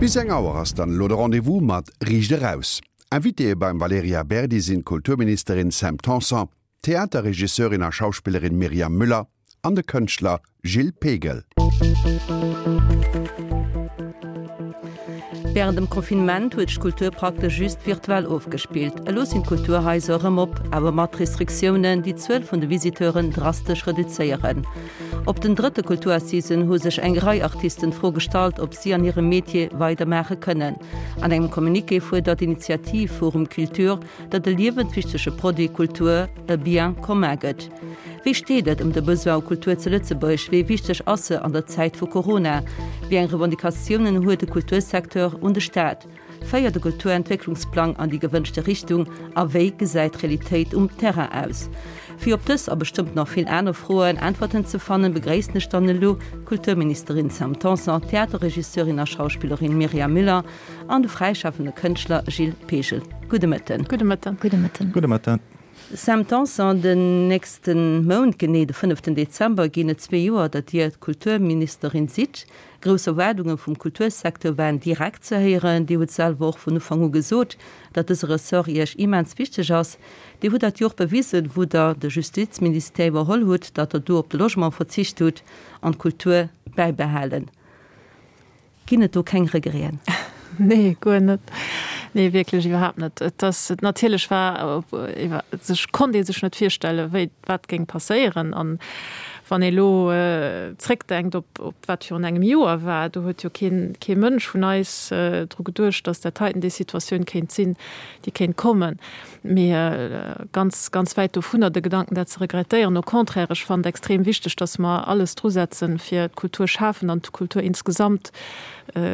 Bis eng Auer ass dann elo de Rendez-vous mat Riicht Eraus. Invitéë beim Valerija Berdi sinn d'Kulturministerin Sam Tanson, d'Theaterregisseurin a Schauspillerin Myriam Müller an de Kënschtler Gilles Pegel. Wärend dem Confinement huet sech d'Kultur praktesch just virtuell ofgespillt. Elo sinn d'Kulturhaiser erëm op, awer mat Restriktiounen, déi d'Zuel vun de Visiteuren drastesch reduzéieren. Op den drëtte Kulturassisen hu sech eng Rei Artisten d'Fro gestallt, ob si an hirem Metier weidermaache kënnen. An engem Communiqué fuerdert d'Initiativ Forum Culture, datt de liewenswichtege Produit Kultur e Bien commun gëtt. Wéi steet et ëm de Besoin u Kultur zu Lëtzebuerg? Wéi wichteg ass se an der Zäit vu Corona? Wéi eng Revendicatiounen huet de Kultursecteur un de Staat? Féiert de Kulturentwécklungsplang an déi gewënschte Richtung a wéi gesäit d'Realitéit um Terrain aus? Fir op dës a bestëmmt nach vill aner Froen Äntwerten ze fannen, begréissen ech dann elo d'Kulturministerin Sam Tanson, d'Theaterregisseurin a Schauspillerin Myriam Müller an de fräischafende Kënschtler Gilles Pegel. Gudde Mëtten. Gudde Mëtten. Gudde Mëtten. Gudde Mëtten. Sam Tanson, den nächste Mount, genee de fënneften Dezember, ginn et zwee Joer, datt Dir Kulturministerin sidd. Grouss Erwaardunge vum Kultursecteur waren direkt ze héieren. Dir hutt selwer och vun Ufank u gesot, datt dëse Ressort Iech immens wichteg ass. Dir hutt dat jo och bewisen, wou Der de Justizministère iwwerholl hutt, datt Der do op de Logement verzicht hutt an d'Kultur bäibehalen. Ginn et do keng Regreten? Nee, guer net. Nee, wierklech iwwerhaapt net. Et ass, natierlech war, sech konnt ee sech net virstellen, wéi, wat géing passéieren. An wann ee elo zréckdenkt op, op wat virun engem Joer war, do huet jo keen, kee Mënsch vun eis dru geduecht, datt dat heiten déi Situatioun kéint sinn, déi kéint kommen. Mee ganz, ganz wäit dovunner, de Gedanken, dat ze regrettéieren. Au contraire, ech fannen et extrem wichteg, dass mer alles drusetzen, fir d'Kulturschafen an d'Kultur insgesamt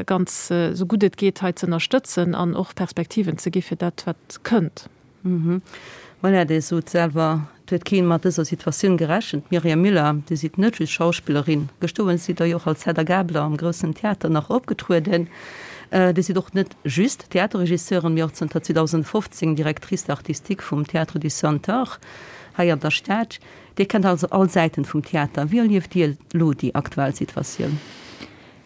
ganz, esou gutt et geet, hei ze ënnerstëtzen an och Perspektiven ze gi fir dat, wat kënnt. Voilà, Dir sot selwer, Et huet keen mat dëser Situatioun gerechent. Myriam Müller, Dir sidd net just Schauspillerin, gestoen sidd Der jo och als Hedda Gabler am Groussen Theater nach opgetrueden. Dir sidd och net just Theaterregisseurin, mee och zënter 2015 Directrice artistique vum Théâtre du Centaure hei an der Stad. Dir kennt also all Säiten vum Theater. Wéi erlieft Dir elo déi aktuell Situatioun?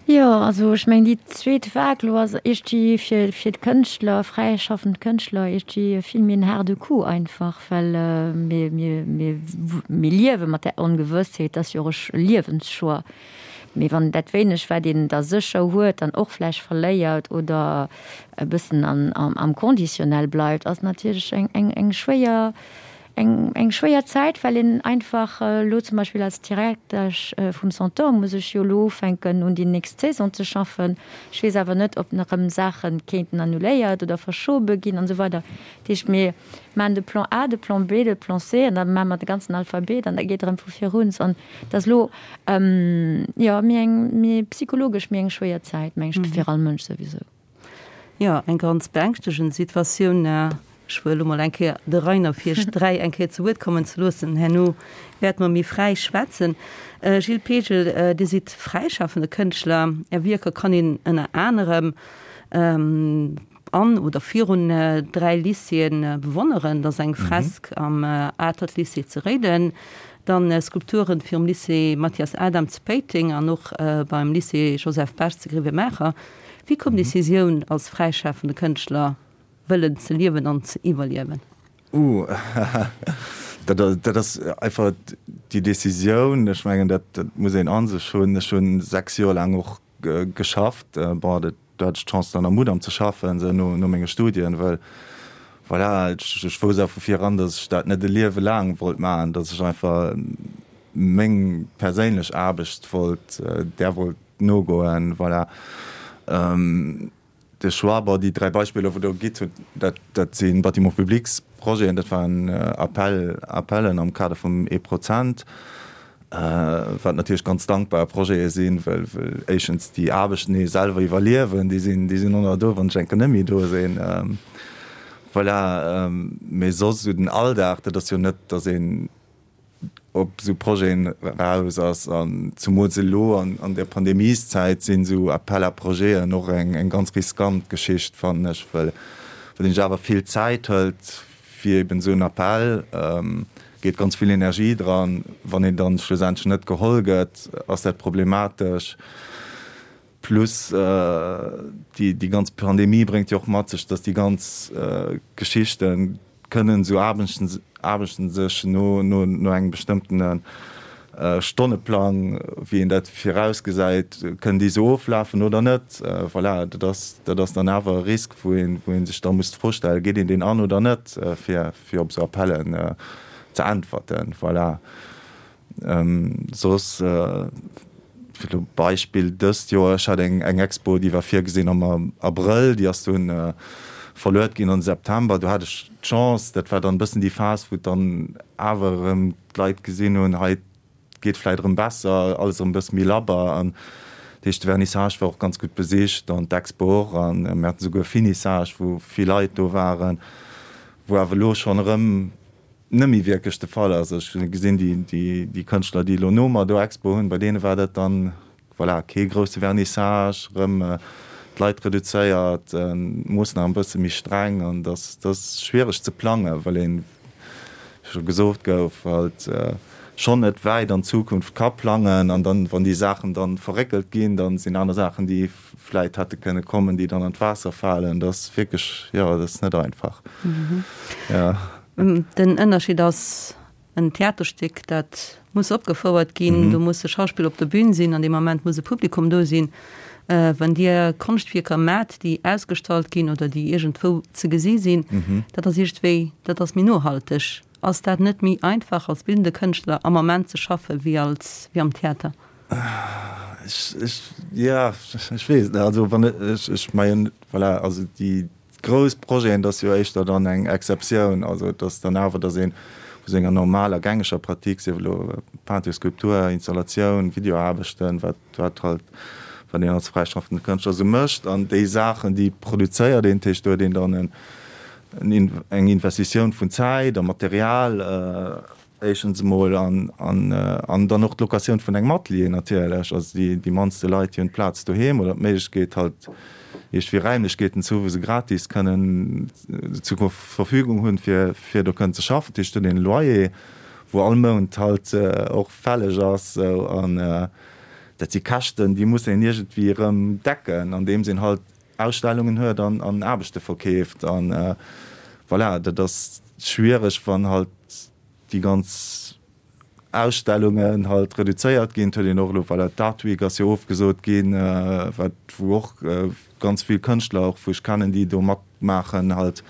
Jo, also ech mengen déi zweet Vague elo ass iergendwéi fir fir d'Kënschtler, fräischaffend Kënschtler iergendwéi vill méi en haarde Coup einfach, well mir mir mir mir liewe mat där Ongewëssheet, dat ass jo och e Liewenschoix. Mee wann dat wéineg wat een da sécher huet dann och vläicht verléiert oder e bëssen an am Conditionnel bleift, ass natierlech eng eng eng schwéier Eng eng schwéier Zäit, well een einfach elo zum Beispill als Direktesch vum Centaure muss ech jo elo ufänken un déi nächst Saison ze schaffen. Ech weess awer net, ob nach erëm Saache kéinten annuléiert oder verschobe ginn an esou weider. Dat heescht, mir maachen de Plan A, de Plan B, de Plan C an da maache mer de ganzen Alphabet an da geet erëm vu vir un. An et ass elo, jo, méi eng, méi psychologesch méi eng schwéier Zäit, meng ech, fir all Mënsch souwisou. Jo, eng ganz beängschtegend Situatioun. Ech wëll elo mol eng Kéier de Rainer fir iech 3 eng Kéier zu Wuert kommen ze loossen. Herno wäerte mer méi fräi schwätzen. Gilles Pegel, Dir sidd fräischafende Kënschtler. Är Wierker kann een ënner anerem an oder virun 3 Lycéeë bewonneren. Dat ass eng Fresk am Atert Lycée zu Réiden, dann Skulpturen virum Lycée Mathias Adam zu Péiteng an och beim Lycée Joseph Bech zu Grevenmacher. Wéi koum d'Decisioun, als fräischafende Kënschtler wëllen ze liewen an ze iwwerliewen? Uh, dat dat ass einfach déi Decisioun. Ech mengen, dat dat muss een a sech hunn. Ech hu 6 Joer laang och geschafft. Bon, dat do hat ech d'Chance dann am Mudam ze schaffen, esou no no menge Studien, well voilà, ech ech wousst awer vu vir eran, datt ech dat net e Liewe laang wollt maachen, datt ech einfach meng perséinlech Aarbecht wollt, där wollt nogoen, voilà. De Choix, bon, déi 3 Beispiller, wou Der gitt hutt, dat, dat si Bâtiments publics Projeten, dat waren Appel, Appellen am Kader vum ee Prozent, wat natierlech ganz dankbar Projete sinn, well, well éischtens déi Aarbechten ee selwer iwwerliewen, déi sinn, déi sinn och nach do, wann ech enke net méi do sinn, voilà. Mee soss esou den Alldag, dat ass jo net, datt een op esou Projeten eraus ass an zumools elo an der Pandemieszäit sinn esou Appel à projeten och eng ganz riskant Geschicht fannen ech, well een sech awer vill Zäit hëlt fir eben esou en Appel, geet ganz vill Energie dran, wann een dann schlussendlech net geholl gëtt, ass dat problematesch. Plus déi ganz Pandemie bréngt jo och mat sech, datt déi ganz Geschichte kënnen esou Aarbechten Aarbechten sech no no no engem bestëmmtene Stonneplang, wéi een dat virausgesäit, kënnen déi esou oflafen oder net. Voilà, dat ass dat ass dann awer e Risk, wou een wou ee sech da muss d'Fro stellen, geet een deen an oder net, fir fir op esou Appellen ze äntwerten. Voilà. Soss, fir elo Beispill dëst Joer, ech hat eng eng Expo, déi war virgesinn am Abrëll, déi ass dunn verluet ginn an de September. Do hat ech d'Chance, dat war dann e bëssen déi Phas, wou et dann awer erëm d'Leit gesinn hunn, hei et geet vläicht erëm besser, alles erëm e bësse méi labber. An dat heescht, de Vernissage war och ganz gutt besicht an d'Expo och. An mir haten esouguer e Finissage, wou vill Leit do waren, wou awer elo schonn erëm net méi wierklech de Fall ass. Ech gesinn déi Kënschtler, déi elo no mer do Expo hunn, bei deene war dat dann, voilà, kee grousse Vernissage, erëm d'Leit reduzéiert, d'Moossnamen e bësse méi streng an dat ass schwiereg ze plangen, well een, wéi scho gesot gouf, halt schonn net wäit an d'Zukunft ka plangen an dann, wann déi Saachen dann verréckelt ginn, da sinn aner Saachen, déi vläit hätte kënne kommen, déi dann an d'Waasser falen. Dat ass wierklech, jo, dat ass net einfach. Jo. Den Ënnerscheed ass, en Theaterstéck, dat muss opgefouert ginn, do musse Schauspiller op der Bühn sinn, an deem Moment muss e Publikum do sinn. Wann Dir Konschtwierker maacht, déi ausgestallt ginn oder déi iergendwou ze gesi sinn, dat ass iergendwéi, dat ass méi nohalteg. Ass dat net méi einfach als bildende Kënschtler am Moment ze schaffe wéi als, wéi am Theater? Ech, ech, ja, ech weess et net. Also wann ech, ech mengen, voilà, also déi grouss Projeten, dat ass jo éischter dann eng Exceptioun. Also et ass dann awer, datt ee vu senger normaler gängeger Pratique, sief elo Peinture, Skulptur, Installatioun, Videoaarbechten, wat, wat halt, wat een als fräischaffende Kënschtler esou mécht, an déi Saachen, déi produzéiert een, dat heescht do huet een dann en, eng Investitioun vun Zäit a Material, Éischtens emol an an dann och d'Locatioun vun engem Atelier natierlech. Also déi déi mannste Leit, déi hunn d'Plaz doheem oder d'Méiglechkeet halt iergendwéi Räimlechkeeten ze hu wou se gratis kënnen zur Verfügung hunn, fir fir do kënnen ze schaffen. Dat heescht, do huet een e Loyer, wou all Mount halt och fälleg ass esou. An dat si Käschten, déi muss een iergendwéi erëm decken, andeems een halt Ausstellungen huet an an Aarbechte verkeeft. An voilà, dat ass schwiereg, wann halt déi ganz Ausstellungen halt reduzéiert ginn. Et huet een och elo, voilà, d'Art Week ass jo ofgesot ginn, wat wou och ganz vill Kënschtler och wou ech kennen, déi do matmaachen, halt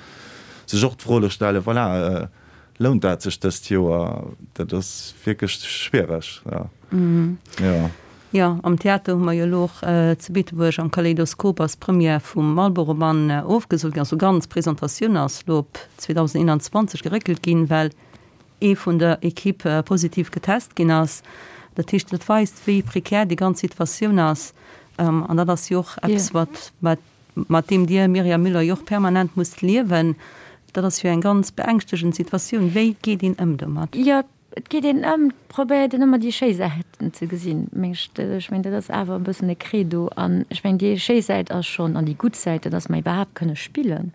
sech och d'Fro elo stellen, voilà, lount dat sech dëst Joer? Dat ass wierklech schwiereg, jo. Jo. Jo, am Theater hu mer jo elo och zu Beetebuerg am Kaleidoskop ass d'Première vum Marlboro-Mann ofgesot ginn. Also ganz Presentatioun ass elo op 2021 geréckelt ginn, well ee vun der Equipe positiv getest ginn ass. Dat heescht, dat weist, wéi prekär déi ganz Situatioun ass. An dat ass jo och eppes, wat, wat, mat deem Dir, Myriam Müller, jo och permanent musst liewen. Dat ass jo eng ganz beängschtegend Situatioun. Wéi geet een ëm domat? Jo, Et geet een ëm, et probéiert een ëmmer déi schéi Säiten ze gesinn, meng ech. Ech mengen, dat ass awer e bëssen e Credo. An ech mengen, déi schéi Säit ass schonn, an déi gutt Säit, dat ass mer iwwerhaapt kënne spillen,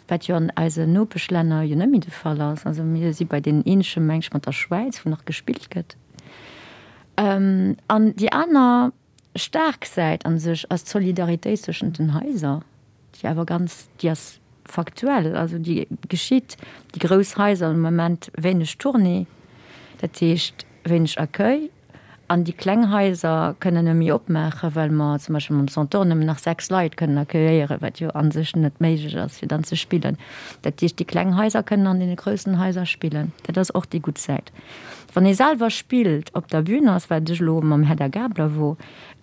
wat jo an eisen Nopeschlänner jo net méi de Fall ass. Also mir si bei deenen eenzege, meng ech, mat der Schwäiz, wou nach gespillt gëtt. An déi aner staark Säit a sech ass d'Solidaritéit zwëschent den Haiser, déi awer ganz, déi ass faktuell, also déi geschitt. Déi grouss Haiser hunn am Moment wéineg Tournée, dat heescht wéineg Accueil, an déi kleng Haiser kënnen net méi opmaachen, well mer zum Beispill mam Centaure nëmmen nach 6 Leit kënnen accueilléieren, wat jo a sech net méiglech ass, fir dann ze spillen. Dat heescht, déi kleng Haiser kënnen an deene groussen Haiser spillen. Dat ass och déi gutt Säit. Wann ee selwer spillt, op der Bühn ass, wat ech elo mam Hedda Gabler wor,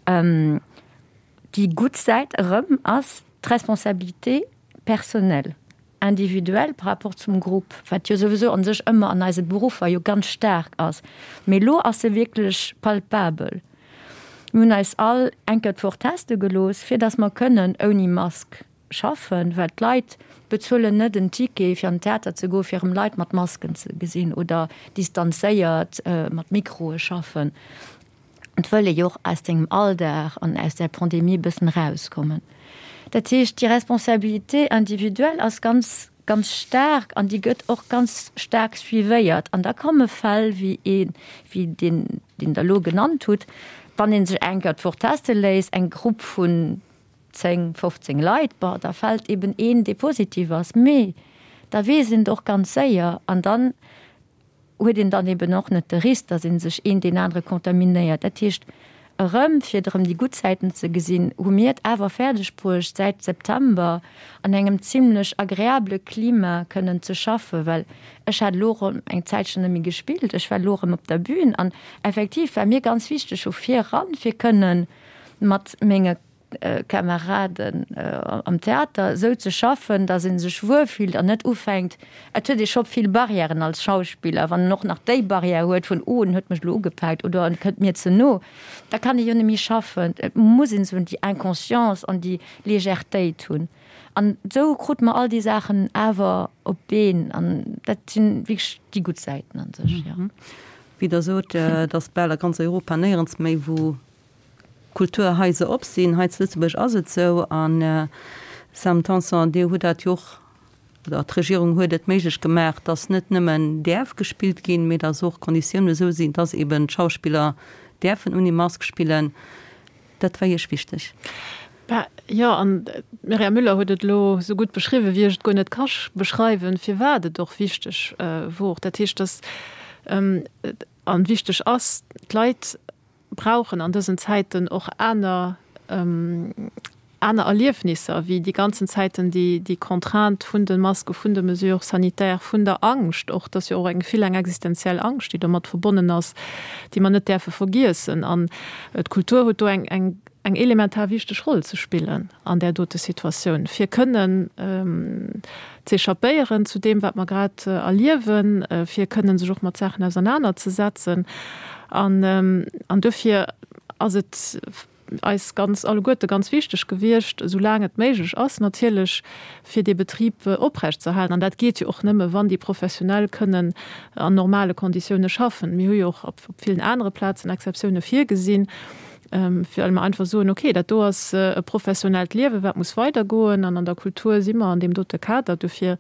déi gutt Säit erëm ass d'Responsabilité personnelle, individuelle par rapport zum Grupp, wat jo souwisou a sech ëmmer an eise Beruffer jo ganz staark ass, mee elo ass se wierklech palpabel. Mir hunn eis all eng Kéier d'Woch teste gelooss, fir datt mer kënnen ouni Mask schaffen, well d'Leit bezuelen net en Ticket fir an den Theater ze goen, fir erëm Leit mat Masken ze gesinn oder distanzéiert mat Mikroe schaffen. Et wëll ee jo och aus sengem Alldag an aus där Pandemie e bëssen erauskommen. Dat heescht, déi Responsabilité individuelle ass ganz, ganz staark an déi gëtt och ganz staark suivéiert. An da komme Fäll wéi ee wéi deen, deen Der elo genannt hutt. Wann ee sech eng Kéier d'Woch teste léisst, eng Grupp vun 10, 15 Leit, bon, da fält eben een, dee positiv ass, mee da weess een et och ganz séier an dann huet een dann eben och net de Risk, datt ee sech een deen anere contaminéiert. Dat heescht, erëm, fir erëm déi gutt Säiten ze gesinn, hu mir et awer fäerdeg bruecht, säit September an engem zimlech agreabele Klima kënnen ze schaffen, well ech hat elo erëm eng Zäitchen net méi gespillt, ech war elo erëm op der Bühn an effektiv war mir ganz wichteg vu vir eran, fir kënnen mat menge Kameraden am Theater esou ze schaffen, datt ee sech wuel fillt an net ufänkt, et huet ee scho vill Barrièren als Schauspiller, wann en och nach déi Barrière huet vun, oh en huet mech elo ugepaakt oder en kënnt mir ze no, da kann ee jo net méi schaffen. Et muss een esou déi Inconscience an déi Légèretéit hunn. An esou krute mer all déi Saachen awer op d'Been an dat sinn wierklech déi gutt Säiten a sech, jo. Wéi Der sot, et ass bal a ganz Europa néierens méi, wou Kulturhaiser op sinn. Hei zu Lëtzebuerg ass et esou. An, Sam Tanson, Dir hutt dat jo och, oder d'Regierung huet et méiglech gemaach, dass net nëmmen däerf gespillt ginn, mee dass och d'Konditiounen esou sinn, dass eben d'Schauspiller däerfen ouni Mask spillen. Dat war Iech wichteg. Bah, jo, an d'Myriam Müller huet et elo esou gutt beschriwwen, wéi ech et guer net ka beschreiwen, firwat et och wichteg wor. Dat heescht, dass, an wichteg ass, d'Leit brauchen an dësen Zäiten och aner aner Erliefnisser wéi déi ganzen Zäiten déi déi Contrainte vun de Maske, vun de Mesures sanitaires, vun der Angscht och. Et ass jo och eng vill eng existenziell Angscht, déi domat verbonnen ass, déi mer net däerfe vergiessen. An d'Kultur huet do eng eng eng elementar wichteg Roll ze spillen an där dote Situatioun, fir kënnen z'échappéieren zu deem, wat mer grad erliewen, fir kënnen sech och mat Saachen ausernanerzesetzen. An, an duerfir ass et eis ganz alleguerte ganz wichteg gewiescht, esou laang et méiglech ass natierlech, fir dee Betrib oprechtzeerhalen. An dat geet jo och nëmme, wann déi Professionell kënnen an normale Konditioune schaffen. Mir hu jo och op villen anere Plazen Exceptioune virgesinn. well mer einfach soen, okay, dat do ass e professionellt Liewen, wat muss weidergoen, an an der Kultur si mer an deem dote Kader. Dofir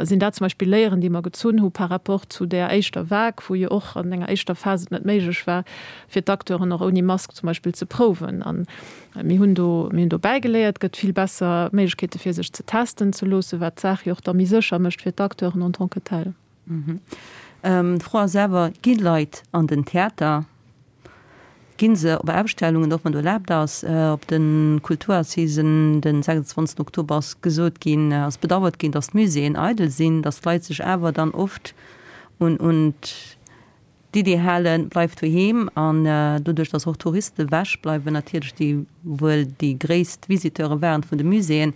sinn dat zum Beispill Léieren, déi mer gezunn hu par rapport zu där éischter Vague, wou jo och an enger éischter Phas et net méiglech war, fir d'Acteuren och ouni Mask zum Beispill ze prouwen. A mir hunn do, mir hunn do bäigeléiert. Et gëtt vill besser Méiglechkeete fir sech ze testen ze loossen, wat d'Saach jo och da méi sécher mécht fir d'Acteuren en tant que tels. D'Fro ass awer, Gi Leit an den Theater? Ginn se op Ausstellungen, och wann do erlaabt ass? Op de Kulturassisen den 26 Oktober ass gesot ginn, ass bedauert ginn, datt d'Muséeën eidel sinn, datt d'Leit sech awer dann oft un un d'Idee halen, bleift doheem. An doduerch, datt och Touriste ewech bleiwen natierlech, déi wuel déi gréisst Visiteure waren vun de Muséeën.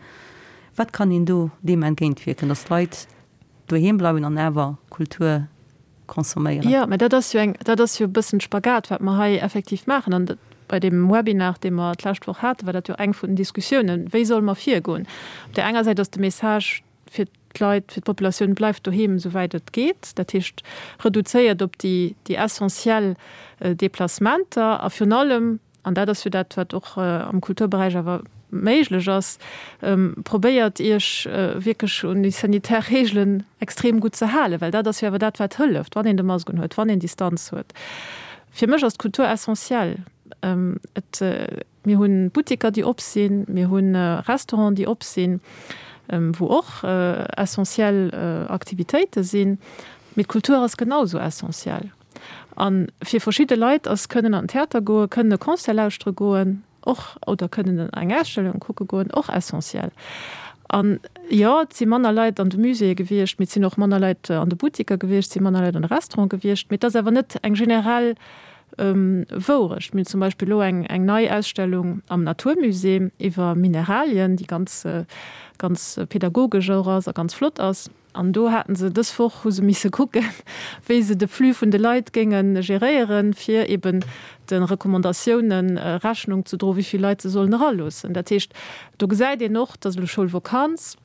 Wat kann een do deem entgéintwierken, datt d'Leit doheem bleiwen an awer Kultur consomméieren. Jo, mä dat ass jo eng, dat ass jo e bëssen Spagat, wat mer hei effektiv maachen. An bei deem Webinar, dee mer d'lescht Woch haten, war dat jo eng vun den Diskussiounen, Wéi solle mer virgoen? Op där enger Säit ass de Message fir d'Leit, fir d'Populatioun, Bleift doheem, esouwäit et geet. Dat heescht, reduzéiert op déi, déi essentiell Deplacementer a virun allem, an dat ass jo dat, wat och am Kulturberäich awer méiglech ass, probéiert Iech wierklech un déi sanitär Reegelen extrem gutt ze halen, well dat ass jo awer dat, wat hëlleft, wann een de Mask unhuet, wann een Distanz huet. Fir mech ass d'Kultur essentiell. Et, mir hu Butteker, déi op sinn, mir hu Restauranten, déi op sinn, wou och essentiell Aktivitéite sinn, mee d'Kultur ass genau esou essentiell. A fir verschidde Leit ass kënnen an den Theater goen, kënnen e Concert lauschtere goen och oder kënnen eng Ausstellung kucke goen och essentiell. An jo, et si manner Leit an de Muséeë gewiescht, mee et sinn och manner Leit an de Buttiker gewiescht, et si manner Leit an de Restaurante gewiescht, mee et ass awer net eng generell Wourecht. Mir hunn zum Beispill elo eng eng nei Ausstellung am Naturmusée iwwer Mineralien, déi ganz ganz pedagogesch och ass a ganz flott ass. An do haten se dës Woch, hu se misse kucken, wéi se de Flux vun de Leit géinge geréieren, fir eben de Recommandatiounen Rechnung ze droen, wéi vill Leit se sollen eraloossen. Dat heescht, do gesäit een och, et ass elo Schoulvokanz.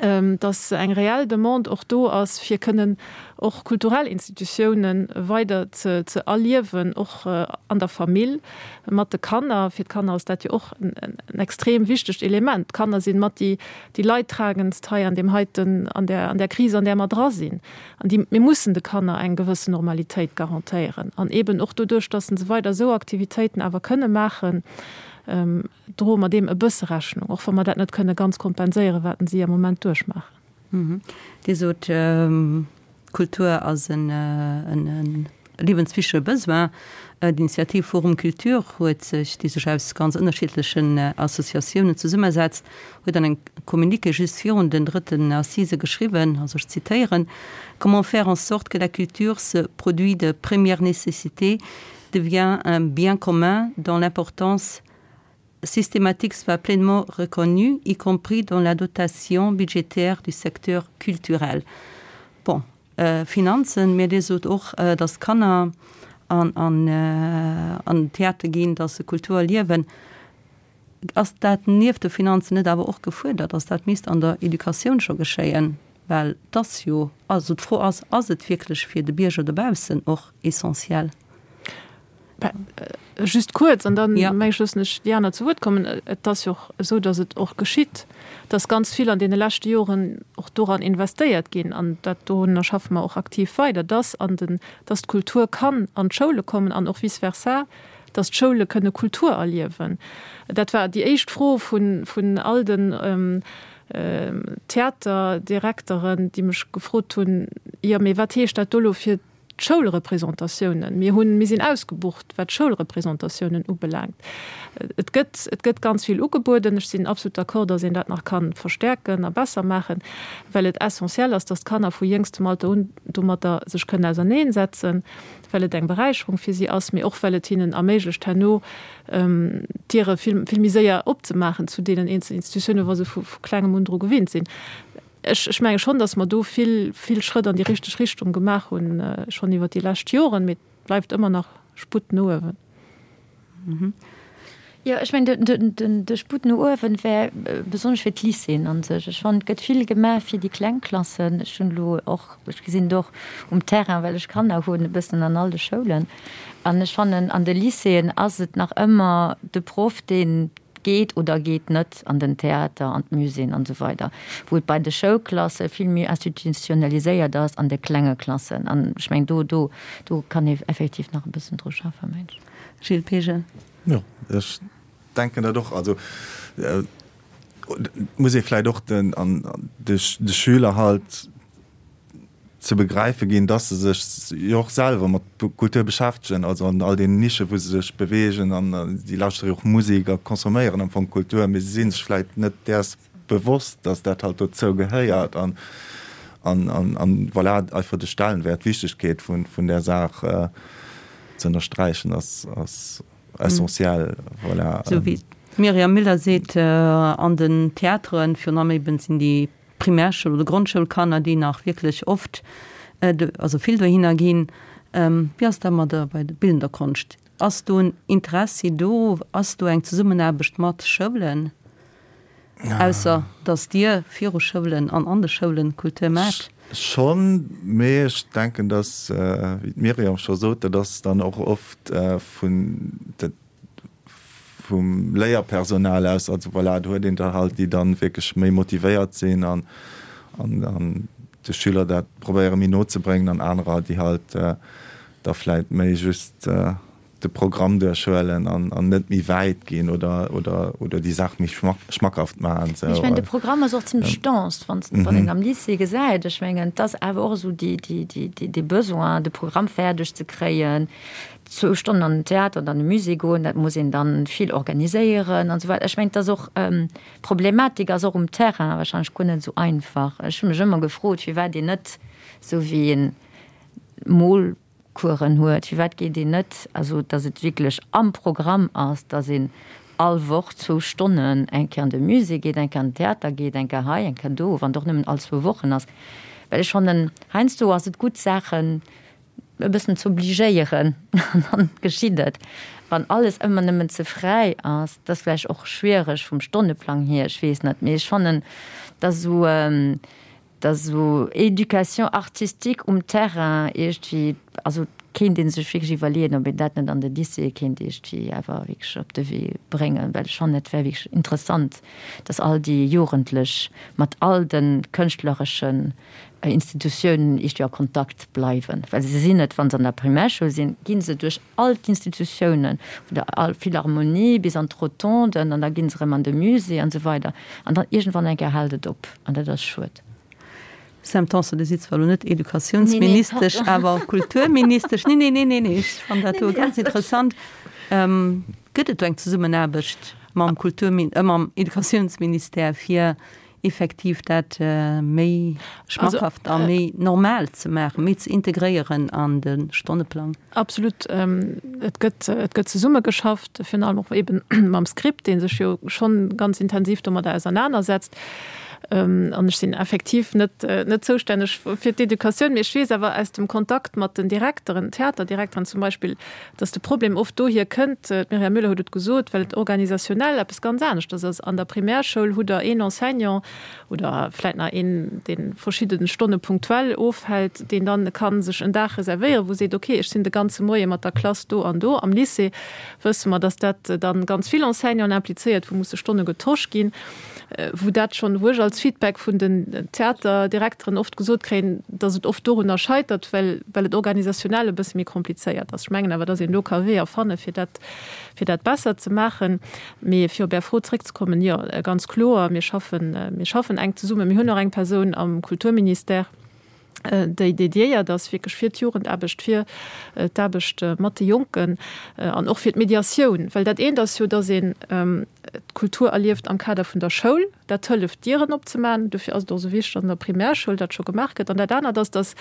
Dass eng reell Demande och do ass, fir kënnen och kulturell Institutiounen weider ze ze erliewen, och an der Famill, mat de Kanner. Fir d'Kanner ass dat jo och en extrem wichtegt Element. D'Kanner sinn mat déi déi leidtragendst hei an deem heiten, an där an där Kris, an där mer dra sinn. An déi, mir mussen de Kanner eng gewëssen Normalitéit garantéieren. An eeben och doduerch, dass se weider esou Aktivitéiten awer kënne maachen, droe mer deem e bësse Rechnung, och wa mer dat net kënne ganz kompenséieren, wat si am Moment duerchmaachen. Dir sot, Kultur ass e liewenswichtige Besoin. D'Initiativ Forum Culture huet sech, déi sech aus ganz ënnerschiddlechen Associatiounen zesummesetzt, huet an engem Communiqué just virun den drëtten Assisë geschriwwen, also ech zitéieren, Comment faire en sorte que la culture, ce produit de première nécessité, devient un bien commun dont l'importance systématique soit pleinement reconnue, y compris dans la dotation budgétaire du secteur culturel. Bon, äh, Finanzen, mee Dir sot och, äh, dass d'Kanner an, an, äh, an den Theater ginn, dass se Kultur erliewen. Ass dat nieft de Finanzen net awer och gefuerdert, dass dat misst an der Educatioun scho geschéien? Well et ass jo, also d'Fro ass, ass et wierklech fir de Bierger dobaussen och essentiell? Just kuerz, an dann meng ech loossen ech déi aner zu Wuert kommen. Et ass jo och esou, datt et och geschitt, datt ganz vill an deene leschte Joren och doran investéiert ginn, an dat dorunner schaffe mer och aktiv weider, datt an den, datt d'Kultur kann an d'Schoule kommen an och vice versa, datt d'Schoule kënne Kultur erliewen. Dat war déi éischt Fro vun, vun all den Theaterdirekteren, déi mech gefrot hunn, Jo, mee wat heescht dat do elo fir d'Schoulrepresentatiounen? Mir hunn, mir sinn ausgebucht, wat d'Schoulrepresentatiounen ubelaangt. Et gëtt, et gëtt ganz vill ugebueden. Ech sinn absolut d'accord, datt een dat nach ka verstärken a besser maachen, well et essentiel ass, datt d'Kanner vu jéngstem Alter un domatter sech kënnen auserneensetzen, well et eng Beräicherung fir si ass, mee och well et hinnen erméiglecht, herno d'Diere vill, vill méi séier opzemaachen zu deenen eenzelen Institutiounen, wa se vu klengem un dru gewinnt sinn. Ech, ech menge schonn, datt mer do vill, vill Schrëtt an déi richteg Richtung gemaach hunn, schonn iwwert déi lescht Joren, mee et bleift ëmmer nach Sputt no uewen. Jo, ech mengen, de Sputt no uewen wär besonnesch fir d'Lycéeën a sech. Ech fannen, et gëtt vill gemaach fir déi kleng Klassen. Ech hunn elo och, ech gesinn et och um Terrain, well ech Kanner hunn, e bëssen an all de Schoulen. An ech fannen, an de Lycéeën ass et nach ëmmer de Proff, deen geet oder geet net an den Theater, an d'Muséeën an esou weider, wou et bei de Schoulklasse vill méi institutionaliséiert ass an de klenge Klassen. An ech mengen, do, do, do kann ee effektiv nach e bëssen dru schaffen, mengen ech. Gilles Pegen. Jo, ech denken dat och. Also et muss ee vläicht och den, an de Schüler halt ze begräife ginn, dass se sech jo och selwer mat Kultur beschäftegen, also an all deenen Nischen, wou se sech beweegen an si lauschtere jo och Musek a consomméieren am Fong Kultur, mee se si sech vläicht net däers bewosst, dass dat halt dozou gehéiert an an voilà, einfach de Stellenwert, d'Wichtegkeet vun vun där Saach ze ënnersträichen ass ass essentiell, voilà. Esou wéi d'Myriam Müller seet, an den Theateren, virun allem eben sinn déi Primärschoul oder Grondschoulkanner, déi nach wierklech oft, also vill dohinner ginn. Wéi ass dat mat der bei der bildender Konscht? Ass do en Interessi do? Ass do eng Zesummenaarbecht mat Schoulen, ausser datt Dir viru Schoulen an an de Schoulen Kultur maacht? Schonn, mee ech denken, datt, wéi d'Myriam scho sot, dat ass dann och oft vun, vum Léierpersonal aus, also voilà, do huet een der halt, déi dann wierklech méi motivéiert sinn an an de Schüler dat probéiere méi no ze bréngen an anerer, déi halt da vläit méi just de Programm duerchhuelen an an net méi wäit ginn oder oder oder déi Saach méi schmackhaft maachen. Mee ech mengen, de Programm ass och zimlech dense, wann wann een am Lycée gesäit. Ech mengen, et ass awer och esou déi déi déi dee Besoin, de Programm fäerdeg ze kréien, zwou Stonnen an den Theater oder an de Musée goen, dat muss een dann vill organiséieren an esou weider. Ech mengen, et ass och, d'Problematik ass och um Terrain wahrscheinlech guer net esou einfach. Ech hu mech ëmmer gefrot, firwat een net, esou wéi een Molcoursen huet, firwat geet een net, also datt et wierklech am Programm ass, datt een all Woch zwou Stonnen eng Kéier an de Musée geet, eng Kéier an den Theater geet, eng Kéier hei, eng Kéier do, wann et och nëmmen all zwou Wochen ass. Well ech fannen, heiansdo ass et gutt, Saachen. e bëssen z'obligéieren an dann geschitt et. Wann alles ëmmer nëmmen ze fräi ass, dat ass vläicht och schwiereg vum Stonneplang hier, ech weess net, mee ech fannen, dass esou, dass esou Éducation artistique um Terrain iergendwéi, also kéint ee sech wierklech iwwerleeën, ob een dat net an de Lycéeë kéint iergendwéi awer wierklech op de Wee bréngen, well ech fannen, et wär wierklech interessant, dass all déi Jugendlech mat all de kënschtlereschen Institutiounen iergendwéi a Kontakt bleiwen, well se sinn et, wa se an der Primärschoul sinn, gi se duerch all d'Institutiounen, vun der Philharmonie bis an d'Rotonden an da gi se erëm an de Musée an esou weider an dann iergendwann eng Kéier hält et op an dat ass schued. Sam Tanson, Dir sidd zwar elo net Educatiounsministesch, awer Kulturministesch. Nee, nee, nee, nee, nee, ech fannen dat do ganz interessant. Gëtt et do eng Zesummenaarbecht mam Kulturmin-, mam Educatiounsministère, fir effektiv dat méi schmackhaft a méi normal ze maachen, méi ze integréieren an de Stonneplang? Absolut. Et gëtt, et gëtt zesummegeschafft, virun allem och eeben mam Script, dee sech jo schonn ganz intensiv domadder ausernanersetzt. An ech sinn effektiv net, net zoustänneg fir d'Educatioun, mee ech weess awer aus dem Kontakt mat den Direkteren, Theaterdirekteren zum Beispill, dass de Problem oft dohier kënnt, d'Myriam Müller huet et gesot, well et organisationnel eppes ganz aneschters ass. An der Primärschoul hutt Der een Enseignant oder vläit nach een, dee verschidde Stonne punktuell ofhält, deen dann ka sech en Dag reservéieren, wou seet, okay, ech sinn de ganze Moie mat der Klass do an do. Am Lycée wësse mer, dass dat dann ganz vill Enseignanten implizéiert, wou musse Stonne getosch ginn. wou dat schonn, wou ech als Feedback vun den Theaterdirekteren oft gesot kréien, dass et oft dorunner scheitert, well, well et organisationnel e bësse méi komplizéiert ass. Ech mengen awer, dass een do ka Weeër fanne fir dat, fir dat besser ze maachen. Mee fir op Är Fro zréckzekommen, Jo, ganz kloer, mir schaffen, mir schaffen enk zesummen. Mir hunn och eng Persoun am Kulturministère, déi dédiéiert ass wierklech fir d'Jugendaarbecht, fir d'Aarbecht mat de Jonken an och fir d'Mediatioun. Well dat eent ass jo, dass een d'Kultur erlieft am Kader vun der Schoul, dat hëlleft Dieren opzemaachen, dofir ass et och esou wichteg, dass an der Primärschoul dat scho gemaach gëtt. An dat anert ass, dass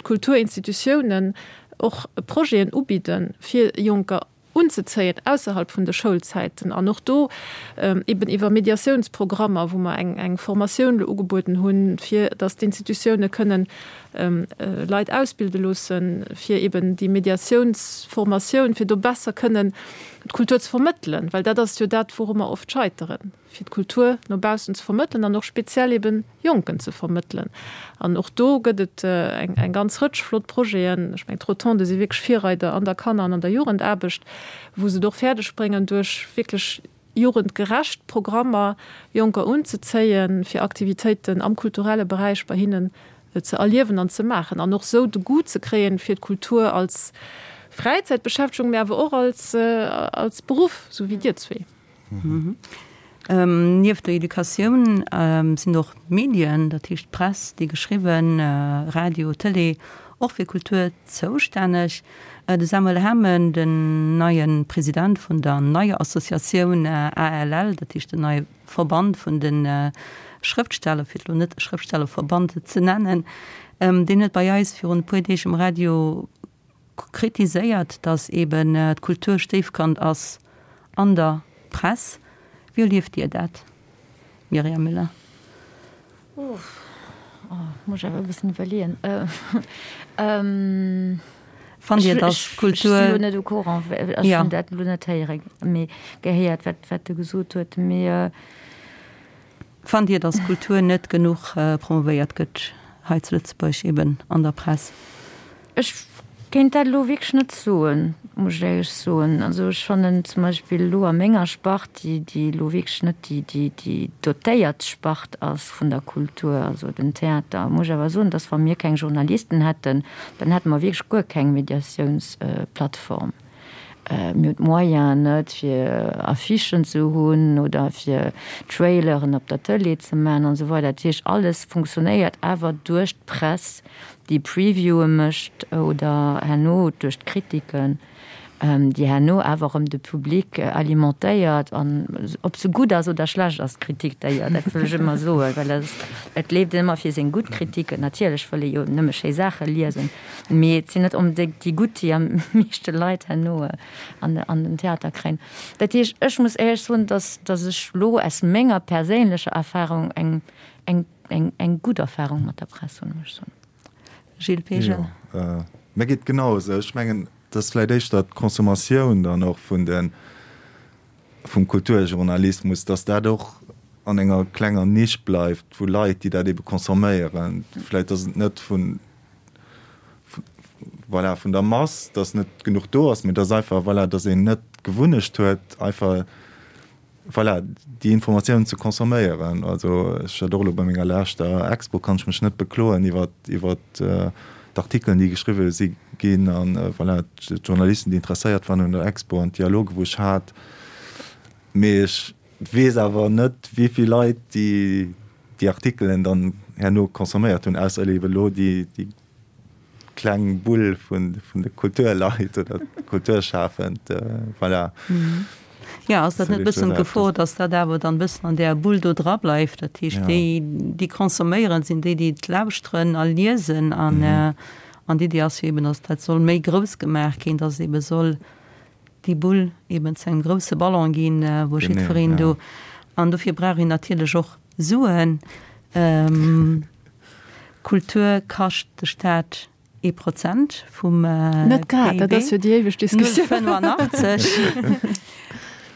d'Kulturinstitutiounen och Projeten ubidde fir Jonker, unzezéien ausserhalb vun de Schoulzäiten an och do eben iwwer Mediatiounsprogrammer, wou mer eng eng Formatioun elo ugebueden hunn, fir datt d'Institutioune kënnen Leit ausbilde loossen, fir eben déi Mediatiounsformatioun, fir do besser kënnen d'Kultur ze vermëttelen, well dat ass jo dat, wouru mer oft scheiteren. fir d'Kultur no baussen ze vermëttelen an och speziell eben Jonken ze vermëttelen. An och do gëtt et eng eng ganz Rëtsch flott Projeten. Ech mengen, d'Rotonde si wierklech Virreider an der Kanner an an der Jugendaarbecht, wou se et och fäerdeg bréngen, duerch wierklech jugendgerecht Programmer Jonker unzezéien, fir Aktivitéiten am kulturelle Beräich bei hinnen ze erliewen an ze maachen an och sou de Goût ze kréien fir d'Kultur als Fräizäitbeschäftegung, mä awer och als als Beruff, sou wéi dir zwee. Nieft der Educatioun sinn och d'Medien, dat heescht d'Press, déi geschriwwen, Radio, Tëlee, och fir Kultur zoustänneg. De Samuel Hamen, den neie President vun der neier Associatioun ALL, dat heescht den neie Verband vun de Schrëftsteller, fir et elo net Schrëftstellerverband ze nennen, deen huet bei eis virun e puer Deeg um Radio kritiséiert, datt eben d'Kultur Stéifkand ass an der Press. Wéi erlieft Dir dat, Myriam Müller? Uff, muss ech awer e bëssen iwwerleeën. Fannt Dir, datt d'Kultur. Ech sinn elo net au courant, ech hunn dat elo net héieren, mee gehéiert, wat e gesot huet. Mee. Fannt Dir, datt Kultur net genuch promovéiert gëtt hei zu Lëtzebuerg, eben an der Press? Ech kéint dat elo wierklech net soen, muss ech éierlech soen. Also ech fannen zum Beispill elo a menger Spart, déi déi elo wierklech net déi déi déi dotéiert Spart ass vun der Kultur, also den Theater, muss ech awer soen, datt wa mir keng Journalisten hätten, dann hätte mer wierklech guer keng Mediatiounsplattform. Mir hunn d'Moyenen net, fir Affichen ze hunn oder fir Traileren op der Tëlee ze maachen an esou weider. Dat heescht, alles funktionéiert awer duerch d'Press, déi Previewe mécht oder herno duerch d'Kritiken, déi herno awer erëm de Public alimentéiert. An ob se gutt ass oder schlecht ass, d'Kritik, d'ailleurs, dat wëll ech ëmmer soen, well et leeft een ëmmer fir seng gutt Kritiken. Natierlech wëll ee jo nëmme schéi Saache liesen. Mee et sinn net onbedéngt déi gutt, déi am meeschte Leit herno an an den Theater kréien. Dat heescht, ech muss éierlech soen, dass dass ech elo aus menger perséinlecher Erfahrung eng eng eng eng gutt Erfahrung mat der Press hunn, muss ech soen. Gilles Peegel. Jo. Mir geet genau esou. Ech mengen, et ass vläicht éischter d'Consommatioun dann och vun de, vum Kulturjournalismus, datt dat och an enger klenger Nisch bleift vu Leit, déi dat ebe consomméieren. Vläicht ass et net vun, voilà, vun der Mass, datt net genuch do ass, mee datt einfach, voilà, datt een net d'Gewunnecht huet, einfach, Voilà, déi Informatiounen ze consomméieren. Also ech hat och elo bei menger leschter Expo, kann ech mech net bekloen iwwer, iwwer d'Artikelen, déi geschriwwe si ginn an voilà, d'Journalisten, déi interesséiert waren un der Expo an d'Dialoge wou ech hat. Mee ech weess awer net, wéi vill Leit déi, déi Artikelen dann herno consomméiert hunn, ausser ebe elo déi, déi kleng Bull vun de Kulturleit oder Kulturschafend, voilà. Jo, ass dat net e bëssen d'Gefor, datt dat awer dann e bëssen an där Bull do dra bleift? Dat heescht, déi, déi consomméieren, sinn déi, déi et lauschteren a liesen. An, an d'Iddi ass jo eben, datt dat soll méi grouss gemaach ginn, datt ebe soll déi Bull eben zu engem grousse Ballon ginn, wou jiddwereen do, an dofir brauch een natierlech och Suen. Kultur kascht de Staat ee Prozent vum PIB. Net grad, dat ass jo déi éiweg Diskussioun. 0,85.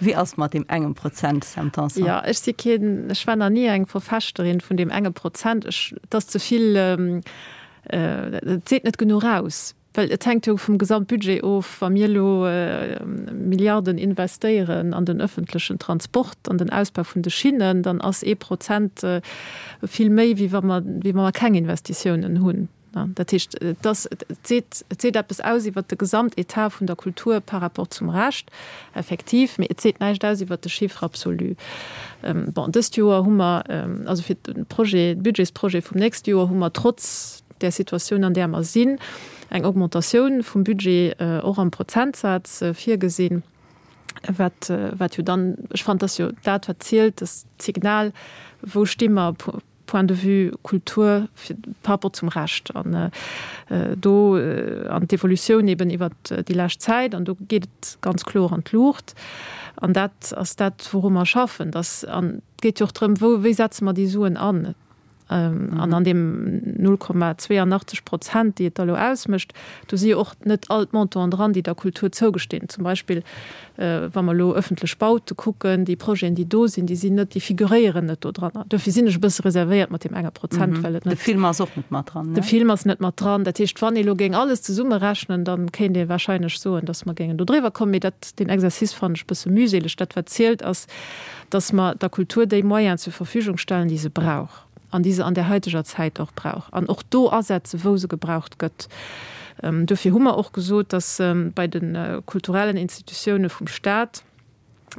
Wéi ass mat deem engem Prozent, Sam Tanson? Jo, ech si keen, ech war nach ni eng Verfechterin vun deem enge Prozent. Ech, et ass ze vill, et seet net genuch aus. Well et hänkt jo vum Gesamtbudget of. Wa mir elo Milliarden investéieren an den öffentlechen Transport, an den Ausbau vun de Schinnen, dann ass ee Prozent vill méi, wéi wa mer, wéi wa mer keng Investitiounen hunn. Dat heescht, et ass, et seet, et seet eppes aus iwwert de Gesamtetat vun der Kultur par rapport zum Rescht, effektiv, mee et seet näischt aus iwwert de Chiffre absolu. Bon, dëst Joer hu mer, also fir de Projet, de Budgetsprojet vum nächste Joer hu mer trotz där Situatioun, an där mer sinn, eng Augmentatioun vum Budget och am Prozentsaz virgesinn, wat, wat jo dann, ech fannen, dat ass jo dat, wat zielt, dat Signal, wou sti mer point de vue Kultur fir, par rapport zum Rescht. An do, an d'Evolutioun eben iwwert déi lescht Zäit, an do geet et ganz kloer an d'Luucht. An dat ass dat, wouru mer schaffen, dass, an et geet jo och drëm, wou, wéi setze mer déi Suen an? An an deem 0,82 Prozent, déi et da elo ausmécht, do si jo och net all d'Montanten dran, déi der Kultur zougestinn. Zum Beispill, wa mer elo ëffentlech Baute kucken, déi Projeten, déi do sinn, déi sinn net, déi figuréieren net do dran. Duerfir sinn ech e bësse reservéiert mat deem enge Prozent, well et net. De Film ass och net mat dran, ne? De Film ass net mat dran. Dat heescht, wann ee elo géing alles zesummerechnen, da kéint ee wahrscheinlech soen, datt mer géingen do driwwer kommen. Mee dat, deen Exercice fannen ech e bësse mühseleg. Dat, wat zielt, ass, dass mer der Kultur déi Moyenen zur Verfügung stellen, déi se brauch an déi se an där haiteger Zäit och brauch, an och do asetzen, wou se gebraucht gëtt. Dofir hu mer och gesot, dass bei de kulturellen Institutioune vum Stat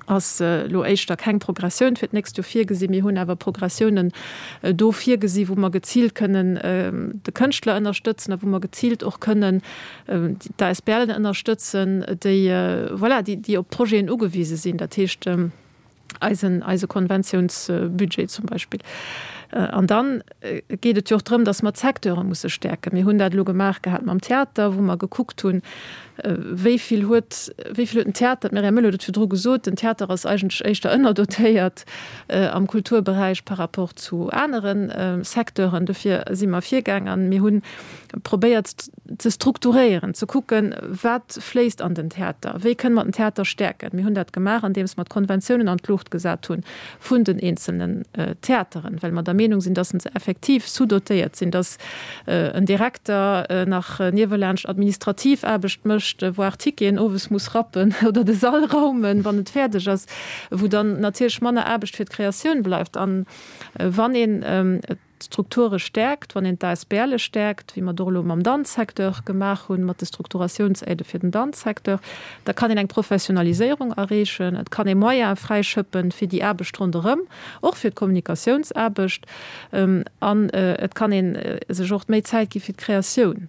ass elo éischter keng Progressioun fir d'nächst Joer virgesinn. Mir hunn awer Progressiounen do virgesi wou mer geziilt kënnen de Kënschtler ënnerstëtzen a wou mer geziilt och kënnen d'ASBLen ënnerstëtzen, déi, voilà, déi, déi op Projeten ugewise sinn, dat heescht eisen, eise Konventiounsbudget zum Beispill. An dann geet et jo och drëm, datt mer d'Secteure musse stäerken. Mir hunn dat elo gemaach gehat mam Theater, wou mer gekuckt hunn, wéi vill huet, wéi vill huet den Theater, d'Myriam Müller huet et virdru gesot, den Theater ass eigentlech éischter ënnerdotéiert am Kulturberäich par rapport zu anere Secteuren. Dofir si mer virgaang an mir hunn probéiert ze strukturéieren, ze kucken, wat fléisst an den Theater, wéi kënne mer den Theater stäerken. Mir hunn dat gemaach, andeems mer d'Konventiounen an d'Luucht gesat hu vun den eenzelnen Theateren, well mer der Meenung sinn, dass se effektiv sous-dotéiert sinn, dass en Direkter nach niewelaanscht administrativ Aarbecht mécht, voire Ticketen owes muss rappen oder de Sall raumen, wann et fäerdeg ass, wou dann natierlech manner Aarbecht fir d'Kreatioun bleift. A wann een d'Strukture stäerkt, wann een d'ASBLe stäerkt, wéi mer et och elo mam Danzsecteur gemaach hunn, mat de Strukturatiounsaidë fir den Danzsecteur, da kann een eng Professionaliséierung erreechen, et kann ee Moyene fräischëppen fir déi Aarbecht ronderëm, och fir d'Kommunikatiounsaarbecht, an et kann ee sech och méi Zäit gi fir d'Kreatioun.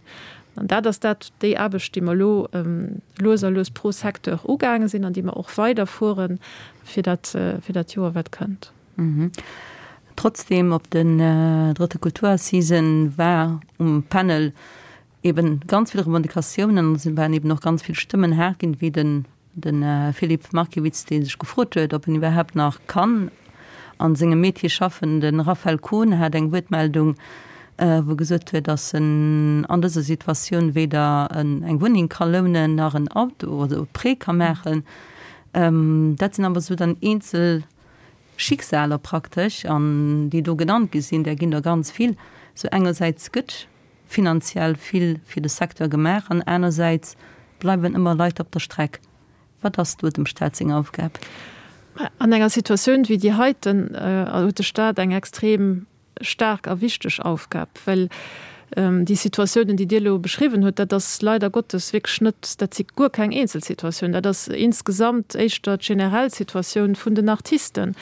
An dat ass dat, déi Aarbecht, déi mer elo lues a lues pro Secteur ugaange sinn an déi mer och weiderfuere fir dat, fir dat Joer, wat kënnt. Trotzdem, op den drëtte Kulturassisen war um Panel eben ganz vill Revendicatiounen an et waren eben och ganz vill Stëmmen haart ginn, wéi den de Philippe Markiewicz, dee sech gefrot huet, ob en iwwerhaapt nach kann a sengem Metier schaffen. De Raphaël Kohn hat eng Wuertmeldung. wou gesot huet, datt en an dëser Situatioun weder eng Wunneng ka lounen nach en Auto oder e Prêt ka maachen. Dat sinn awer esou dann eenzel Schicksaler praktesch, an déi do genannt gi sinn, där ginn der ganz vill. Sou engersäits gëtt finanziell vill fir de Secteur gemaach an anersäits bleiwen ëmmer Leit op der Streck. Wat ass do dem Staat seng Aufgab? An enger Situatioun wéi déi heiten huet de Staat eng extrem staark a wichteg Aufgab, well déi Situatiounen, déi Dir elo beschriwwen hutt, dat ass leider Gottes wierklech net, dat si guer keng Eenzelsituatioun, dat ass insgesamt éischter d'generell Situatioun vun den Artisten.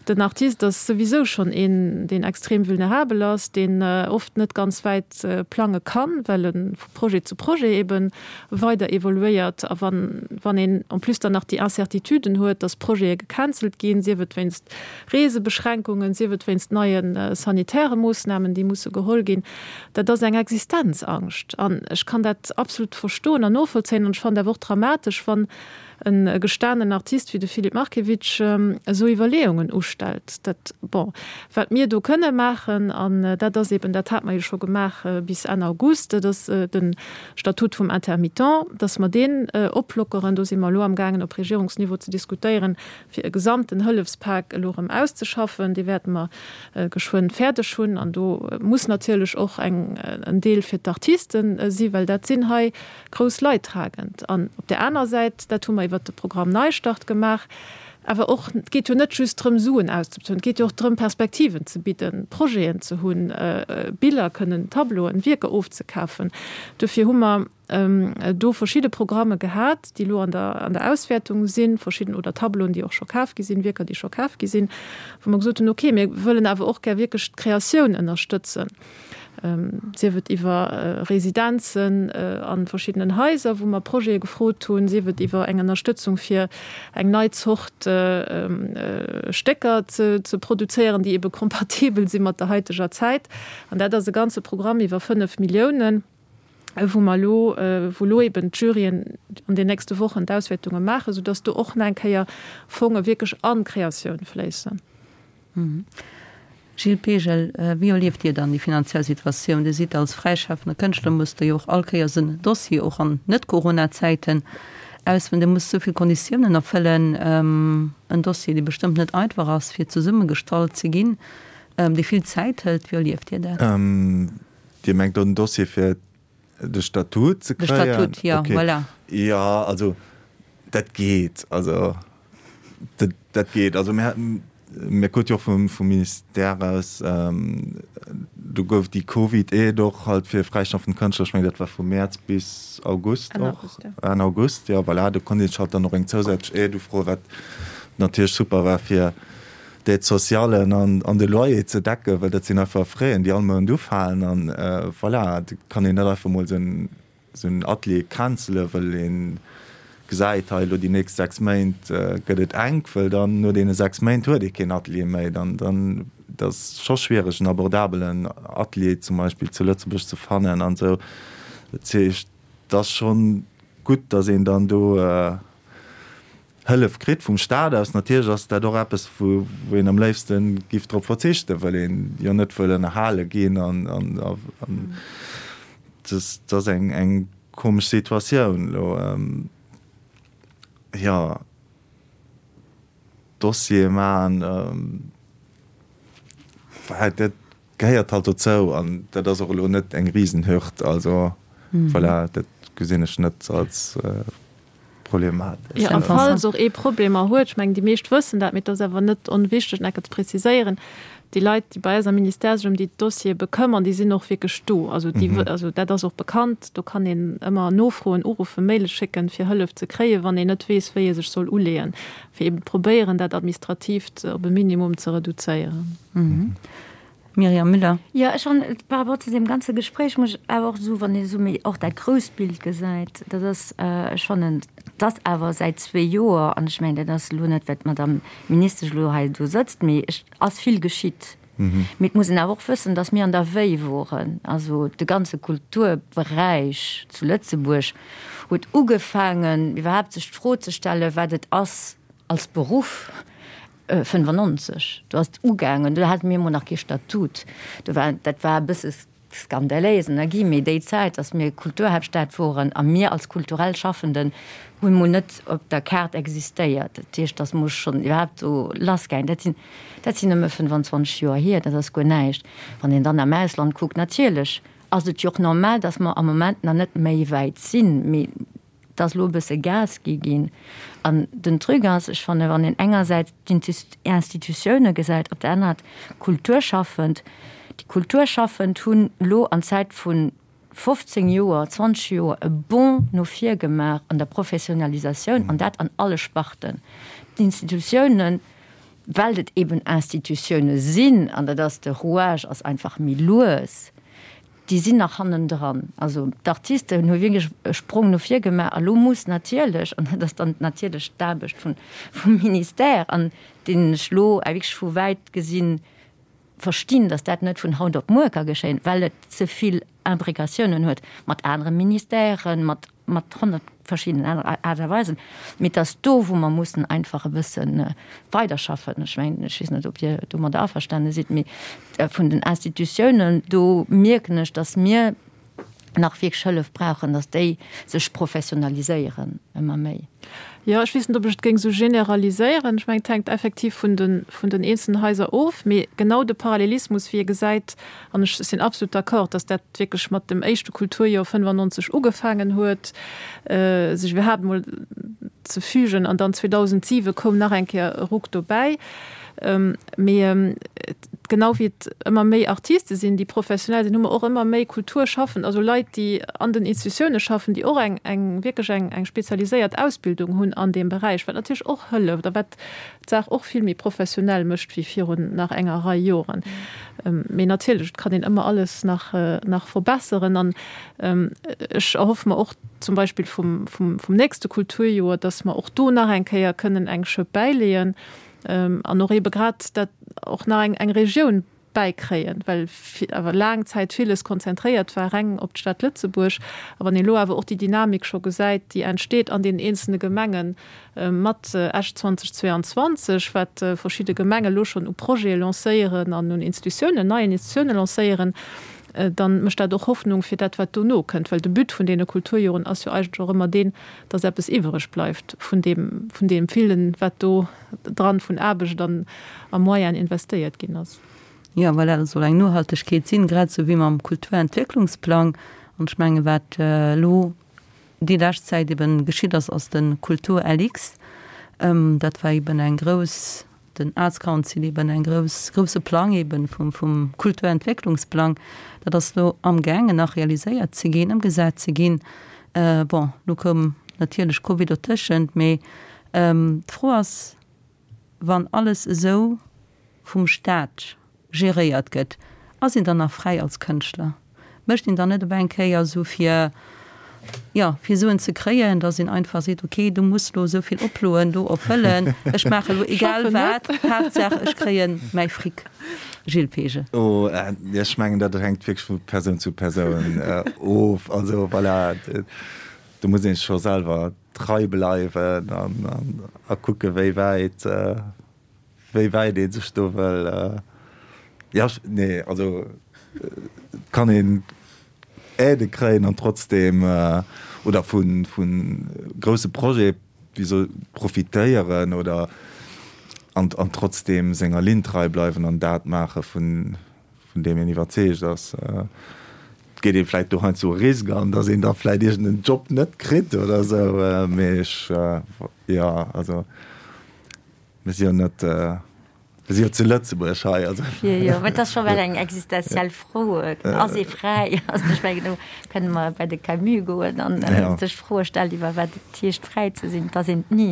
Den Artist ass souwisou schonn een, deen extrem vulnerabel ass, deen oft net ganz wäit plange kann, well e vu Projet zu Projet ebe weider evoluéiert. A wann, wann een en plus dann nach déi Incertituden huet, dass Projete gecancelt ginn, sief et wéinst Reesebeschränkungen, sief et wéinst neie sanitäre Moossnamen, déi musse geholl ginn, dat ass eng Existenzangscht. An ech kann dat absolut verstoen an novollzéien. An ech fannen et awer och dramatesch, wann e gestanen Artist wéi de Filip Markiewicz esou Iwwerleeungen ustellt. Dat, bon, wat mir do kënne maachen, an dat ass eben, dat hate mer jo scho gemaach bis Enn August, dat ass de Statut vum Intermittent, dass mer deen oplockeren. Do si mer elo amgaangen op Regierungsniveau ze diskutéieren, fir e gesamten Hëllefspak elo erëm auszeschaffen. Dee wäerte mer geschwënn fäerdeg hunn. An do muss natierlech och eng, en Deel fir d'Artiste si, well dat sinn hei grouss Leidtragend. An op där aner Säit, dat hu mer iwwert de Programm Neistart gemaach, awer och, et geet jo net just drëm, Suen auszebezuelen, et geet jo och drëm, Perspektiven ze bidden, Projeten ze hunn, Biller kënnen, Tableauen, Wierker ofzekafen. Dofir hu mer do verschidde Programme gehat, déi elo an der, an der Auswäertung sinn, verschidden, oder Tableauen, déi och scho kaf gi sinn, Wierker, déi scho kaf gi sinn, wou mer gesot hunn, okay, mir wëllen awer och gär wierklech d'Kreatioun ënnerstëtzen, sief et iwwer Residenzen a verschiddenen Haiser, wou mer Projete gefrot hunn, sief et iwwer eng Ënnerstëtzung fir eng nei Zort Stécker ze, ze produzéieren, déi ebe kompatibel si mat der haiteger Zäit. An dat ass e ganze Programm iwwer 5 Milliounen. wou mer elo, wou elo eben d'Juryen an den nächste Wochen d'Auswäertunge maachen, soudass do och nach eng Kéier Fonge wierklech an d'Kreatioun fléissen. Gilles Pegel, wéi erlieft Dir dann déi finanziell Situatioun? Dir sidd als fräischafender Kënschtler, musst Der jo och all Kéiers en Dossier, och an Net-Corona-Zäiten, ausfëllen. Dir musst esou vill Konditiounen erfëllen, en Dossier, dee bestëmmt net einfach ass, fir zesummegestallt ze ginn, dee vill Zäit hëlt. Wéi erlieft Dir dat? Dir mengt do den Dossier fir de Statut ze kréien? De Statut, jo, okay. Voilà. Jo, also dat geet. Also dat, dat geet. Also mir, mir krute jo och vum, vum Ministère aus, do gouf déi Covid-Aide och halt fir fräischaffend Kënschtler, ech mengen dat war vu Mäerz bis August Enn och. August, jo. Enn August, jo, voilà. Do konnt een sech halt dann och eng zousätzlech Aide ufroen, wat natierlech super war fir d'Aide sociale an de Loyer ze decken, well dat sinn einfach Fräen, déi all Mount ufalen. An voilà, et kann een net einfach mol esou en Atelier cancelen, well ee gesäit, hei elo déi nächst 6 Méint gëtt et enk, well dann no deene 6 Méint huet ee keen Atelier méi. Dann, dann, et ass scho schwiereg en abordabelen Atelier zum Beispill zu Lëtzebuerg ze fannen an esou. Dat heescht, et ass schonn gutt, datt een dann do, Hëllef kritt vum Staat aus. Natierlech ass dat och eppes, wou een am léifste giff drop verzichten, well een jo net wëll ënnerhale ginn an dat ass eng komesch Situatioun elo. Jo, Dossiere maachen, dat gehéiert halt dozou an dat ass och elo net eng Risenhürd. Also voilà, dat gesinn ech net als problematesch. Jo, a falls och ee Problemer huet, ech mengen déi meescht wëssen dat, mee et ass awer net onwichteg nach eng Kéier ze preziséieren, déi Leit, déi bei eis am Ministère sech ëm déi Dossiere bekëmmern, déi sinn och wierklech do. Also déi, also dat ass och bekannt, do kann een ëmmer nofroen, uruffen, Maile schécken, fir Hëllef ze kréien, wann een net weess, wéi ee sech soll uleeën, fir eeben probéieren, dat Administratiivt op e Minimum ze reduzéieren. Myriam Müller. Jo, ech fannen, par rapport zu deem ganze Gespréich muss ech awer och soen, wann ee esou méi och dat grousst Bild gesäit, dat ass, ech fannen, dass awer säit zwee Joer, an ech mengen, dat ass elo net, well d'Madame Ministesch elo hei do sëtzt, mee et ass vill geschitt. Mee et muss een awer och wëssen, dass mir an der Wéi woren. Also de ganze Kulturberäich zu Lëtzebuerg huet ugefaangen, iwwerhaapt sech d'Fro ze stellen, wat et ass als Beruff. 95, do ass et ugaangen, do hate mir emol nach kee Statut, do war, dat war e bësse. skandaléis ënner Guillemets, déi Zäit, datt mir Kulturhaaptstad woren a mir als kulturell Schaffenden hu mol net op der Kaart existéiert. Dat heescht, datt mol schonn iwwerhaapt do lassgaangen. Dat sinn, dat sinn nëmme 25 Joer hier, dat ass guer näischt. Wann een dann am Ausland kuckt, natierlech ass et jo och normal, datt mer am Moment nach net méi wäit sinn, mee Et ass elo e bësse Gas gi ginn. An den Truc ass, ech fannen, wann een engersäits d'Institutioune gesäit, op der anerer d'Kulturschaffend, déi Kulturschaffend hunn elo an Zäit vu 15 Joer, 20 Joer e Bond no vir gemaach an der Professionalisatioun, an dat an alle Sparten. D'Institutiounen, well et eben Institutioune sinn, an dat ass de Rouage ass einfach méi lues, Déi sinn nach hannendran. Also d'Artisten hu wierklech e Sprong no vir gemaach. A lo muss natierlech, an dat ass dann natierlech d'Aarbecht vun, vum Ministère, an deen ech lo wierklech vu wäit gesinn verstinn, datt dat net vun haut op muer ka geschéien, well et ze vill Imbricatiounen huet mat anere Ministèren, mat mat 100 verschiddenen aner Aart a Weisen, mee et ass do, wou mer mussen einfach e bësse weiderschaffen. Ech mengen, ech weess net, ob Dir domadder averstane sidd, mee vun den Institutiounen, do mierken ech, dass mir nach wierklech Hëllef brauchen, dass déi sech professionaliséieren ëmmer méi. Jo, ech weess net, ob ech et géing esou generaliséieren. Ech mengen, et hänkt effektiv vun de, vun den eenzelnen Haiser of, mee genau de Parallelismus, wéi ee gesäit, An ech sinn absolut d'accord, dass dat wierklech mat dem éischte Kulturjoer 95 ugefaangen huet, sech iwwerhaapt emol ze fügen. An dann 2007 koum nach eng Kéier e Ruck dobäi. Mee genau wéi et ëmmer méi Artiste sinn, déi professionell sinn, hu mer och ëmmer méi Kulturschaffend, also Leit, déi an den Institutioune schaffen, déi och eng, eng wierklech eng, eng spezialiséiert Ausbildung hunn an deem Beräich, wat natierlech och hëlleft a wat d'Saach och vill méi professionell mécht wéi virun nach enger Rei Joren. Mee natierlech, et kann een ëmmer alles nach, nach verbesseren. An ech erhoffe mer och zum Beispill vum, vum, vum nächste Kulturjoer, dass mer och do nach eng Kéier kënnen eng Schëpp bäileeën an och eebe grad dat och nach eng, eng Regioun bäikréien, well awer laang Zäit villes konzentréiert war reng op d'Stad Lëtzebuerg. A wann een elo awer och déi Dynamik scho gesäit, déi entsteet an deenen eenzelne Gemenge mat Esch 2022, wat verschidde Gemenge elo schonn u Projete lancéieren an un Institutiounen, neien Institutiounen lancéieren, dann mécht dat och Hoffnung fir dat, wat dono kënnt. Well de But vun deene Kulturjoren ass jo eigentlech och ëmmer deen, dass eppes iwwereg bleift vun deem, vun deem villen, wat do dran vun Aarbecht an a Moyen investéiert ginn ass. Jo, voilà, dat soll eng Nohaltegkeet sinn, grad esou wéi mam Kulturentwécklungsplang. An ech menge wat elo déi lescht Zäit eben geschitt ass, ass de Kultur-LX. Dat war eben eng grouss, den Arts Council eben eng grouss, grousse Plang eben vum, vum Kulturentwécklungsplang. Dat ass elo amgaangen nach realiséiert ze ginn, ëmgesat ze ginn. Bon, elo koum natierlech Covid dotëschent, mee D'Fro ass, wann alles esou vum Staat geréiert gëtt, ass een dann nach fräi als Kënschtler? Mécht een dann net op eng Kéier esou fir, jo, fir Suen ze kréien, datt een einfach seet, ok, du muss elo esou vill Oploen do erfëllen, ech maache elo egal wat, Haaptsaach ech kréie mäi Fric. Gilles Peege. Oh, ech mengen, dat hänkt wierklech vu Persoun zu Persoun of. Also voilà, do muss ee scho selwer trei bleiwen an a kucke wéi wäit wéi wäit ee sech do wëll jo nee also et kann een Aidë kréien an trotzdeem oder vu vu grousse Projete wéi soll profitéieren oder an an trotzdeem senger Linn trei bleiwen an dat maache vun vun deem een iwwerzeegt ass, et geet ee vläit do heiansdo e Risk an, datt een da vläit iergend en Job net kritt oder esou, mee ech, jo, also mir si jo net, mir si jo zu Lëtzebuerg hei, also. Jo, jo, mä et ass scho well eng existenziell Fro, ass ee fräi? Also ech mengen, do kënne mer bei de Camus goen an sech Froe stellen iwwer wat et heescht fräi ze sinn. Et ass een et ni,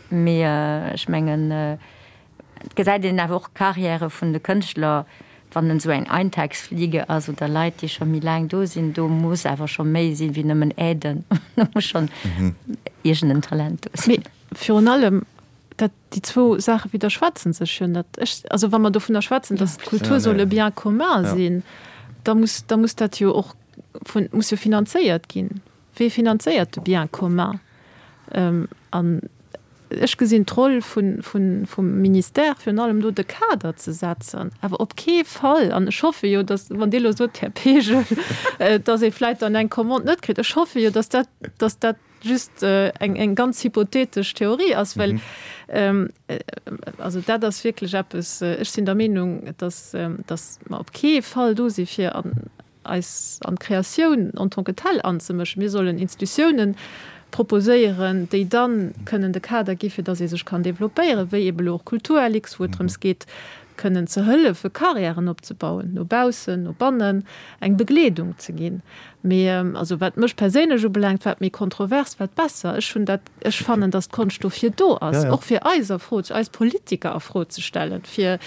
mee ech mengen, Et gesäit een awer och d'Carrièrë vun de Kënschtler, wann en esou eng Eintagsfliege ass oder Leit, déi scho méi laang do sinn, do muss awer scho méi sinn wéi nëmmen Aiden. Do muss schonn iergend en Talent do sinn. Mee virun allem, dat, déi zwou Saache widderschwätzen sech jo net. Ech, also wa mer dovunner schwätzen, datt d'Kultur soll e Bien commun sinn, da muss, da muss dat jo och vun, muss jo finanzéiert ginn. Wee finanzéiert de Bien commun? An. Ech gesinn d'Roll vum Ministère virun allem do, de Kader ze setzen, awer op kee Fall, an ech hoffe jo, datt, wann Dir elo sot, Här Pegel, datt ee vläicht dann eng Commande net kritt, ech hoffe jo, datt dat, datt dat just eng ganz hypothetesch Theorie ass, well also dat ass wierklech eppes, ech sinn der Meenung, datt, datt mer op kee Fall do si fir an eis an d'Kreatioun en tant que telle anzemëschen. Mir sollen Institutiounen proposéieren, déi da kënnen de Kader gi fir datt ee sech kann développéieren, wéi ebe lo och Kulturlux, wou et drëms geet, kënnen ze hëllefe Carrièren opzebauen, no baussen, no bannen, eng Begleedung ze ginn. Mee also wat mech perséinlech ubelaangt, wat méi kontrovers, wat besser. Ech hunn dat, ech fannen, datt d'Konscht dofir do ass, och fir eis a Fro, eis Politiker a Fro ze stellen, fir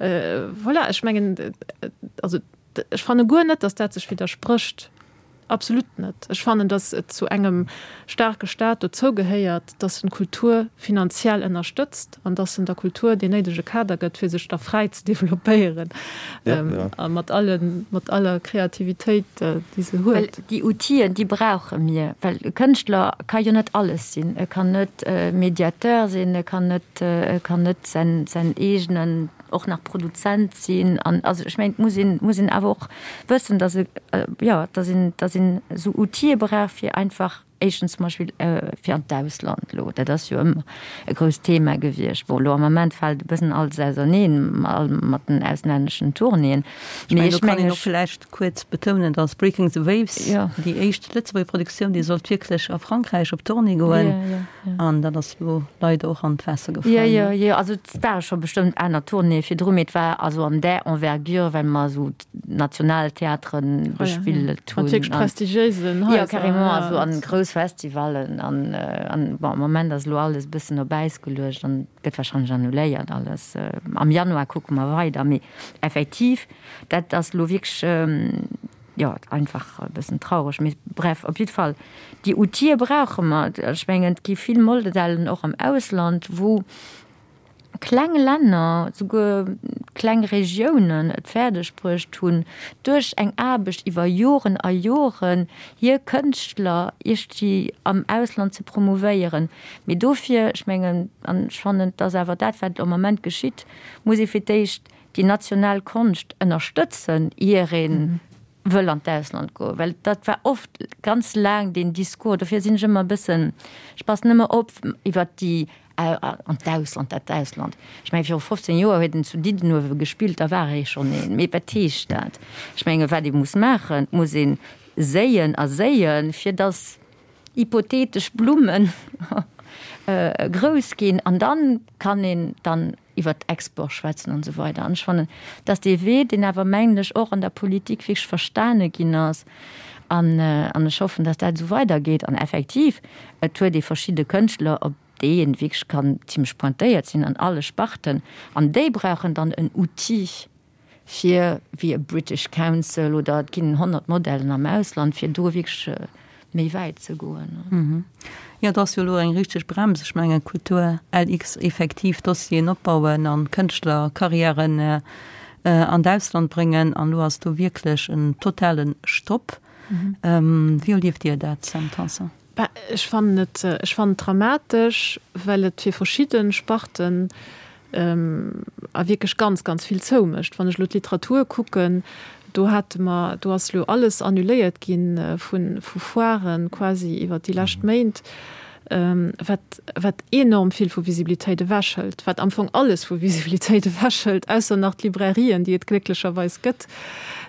voilà, ech mengen, also Ech fanne guer net, datt dat sech widdersprécht. Absolut net. Ech fannen, datt et zu engem staarke Staat dozou gehéiert, datt en d'Kultur finanziell ënnerstëtzt an datt en der Kultur deen néidege Kader gëtt, fir sech da fräi ze developpéieren a mat allen, mat aller Kreativitéit, déi se huet. Well déi Outiller, déi brauche mir, well e Kënschtler ka jo net alles sinn. E kann net Mediateur sinn, e kann net, e kann net säin, säin eegenen och nach Produzent sinn an also ech mengen et muss een, muss een awer och wëssen, datt e jo, datt een, datt een esou Outile brauch fir einfach éischtens zum Beispill fir an d'Ausland elo, dat ass jo ëmmer e grousst Thema gewiescht. Bon elo am Ament fält e bëssen alles auserneen mat den auslänneschen Tournéeën, mee ech mengen ech. Vläicht kuerz betounen, datt Breaking the Waves, déi éischt Lëtzebuerger Produktioun, déi sollt wierklech a Frankräich op Tournée goen. An dat ass elo leider och an d'Waasser gefall. Jo, jo, jo, also et ware scho bestëmmt aner Tournéeë virdru, mee et war also an där Envergure, well mer esou d'Nationaltheatere bespillt hunn. Mat wierklech prestigiéisen Haiser. Jo, carrément, also an grouss Festivallen an, an bon, am Moment ass elo alles e bëssen op Äis geluecht an gëtt warscheinlech annuléiert alles. Am Januar kucke mer weider, mee effektiv, dat ass elo wierklech, jo, einfach e bëssen traureg, mee bref, op jiddwer Fall, déi Outile brauche mer. Ech mengen, et gi vill Modellen och am Ausland, wou kleng Länner, souguer kleng Regiounen et fäerdeg bruecht hunn, duerch eng Aarbecht iwwer Joren a Joren hir Kënschtler iergendwéi am Ausland ze promouvéieren. Mee dofir, ech mengen, an ech fannen, et ass awer dat, wat am Ament geschitt, muss ee fir d'éischt déi national Konscht ënnerstëtzen, ier ee wëll an d'Ausland goen, well dat war oft ganz laang deen Discours. Dofir sinn ech ëmmer e bëssen, ech passen ëmmer op iwwert déi an d'Ausland, dat Ausland. Ech mengen, viru 15 Joer huet en zu Diddenuewe gespillt, da war ee schonn een. Mee wat heescht dat? Ech menge wat ee muss maachen, et muss ee séien a séien, fir datt hypothetesch Blummen grouss ginn an dann kann een dann iwwert Export schwätzen an esou weider. An ech fannen, dass dee Wee, deen awer, mengen ech, och an der Politik wierklech verstane ginn ass, an an ech hoffen, dass dat esou weidergeet. An effektiv, et huet ee verschidde Kënschtler, op déi ee wierklech kann zimlech pointéiert sinn an alle Sparten, an déi brauchen dann en Outil, fir wéi e British Council oder et ginn 100 Modellen am Ausland, fir do wierklech méi wäit ze goen. Jo, et ass jo elo eng richteg Brems. Ech mengen, Kultur LX, effektiv Dossieren opbauen an Kënschtlerkarriären an d'Ausland bréngen. An elo ass do wierklech en totale Stopp. Wéi erlieft Dir dat, Sam Tanson? Bah, ech fannen et, ech fannen et dramatesch, well et fir verschidde Sparten a wierklech ganz, ganz vill zoumécht. Wann ech elo d'Literatur kucken, do hate mer, do ass elo alles annuléiert gi vu vu Foiren quasi iwwert déi lescht Méint, wat wat enorm vill vu Visibilitéit ewechhëlt, wat am Fong alles vu Visibilitéit ewechhëlt, ausser nach d'Librairien, déi et glécklecherweis gëtt,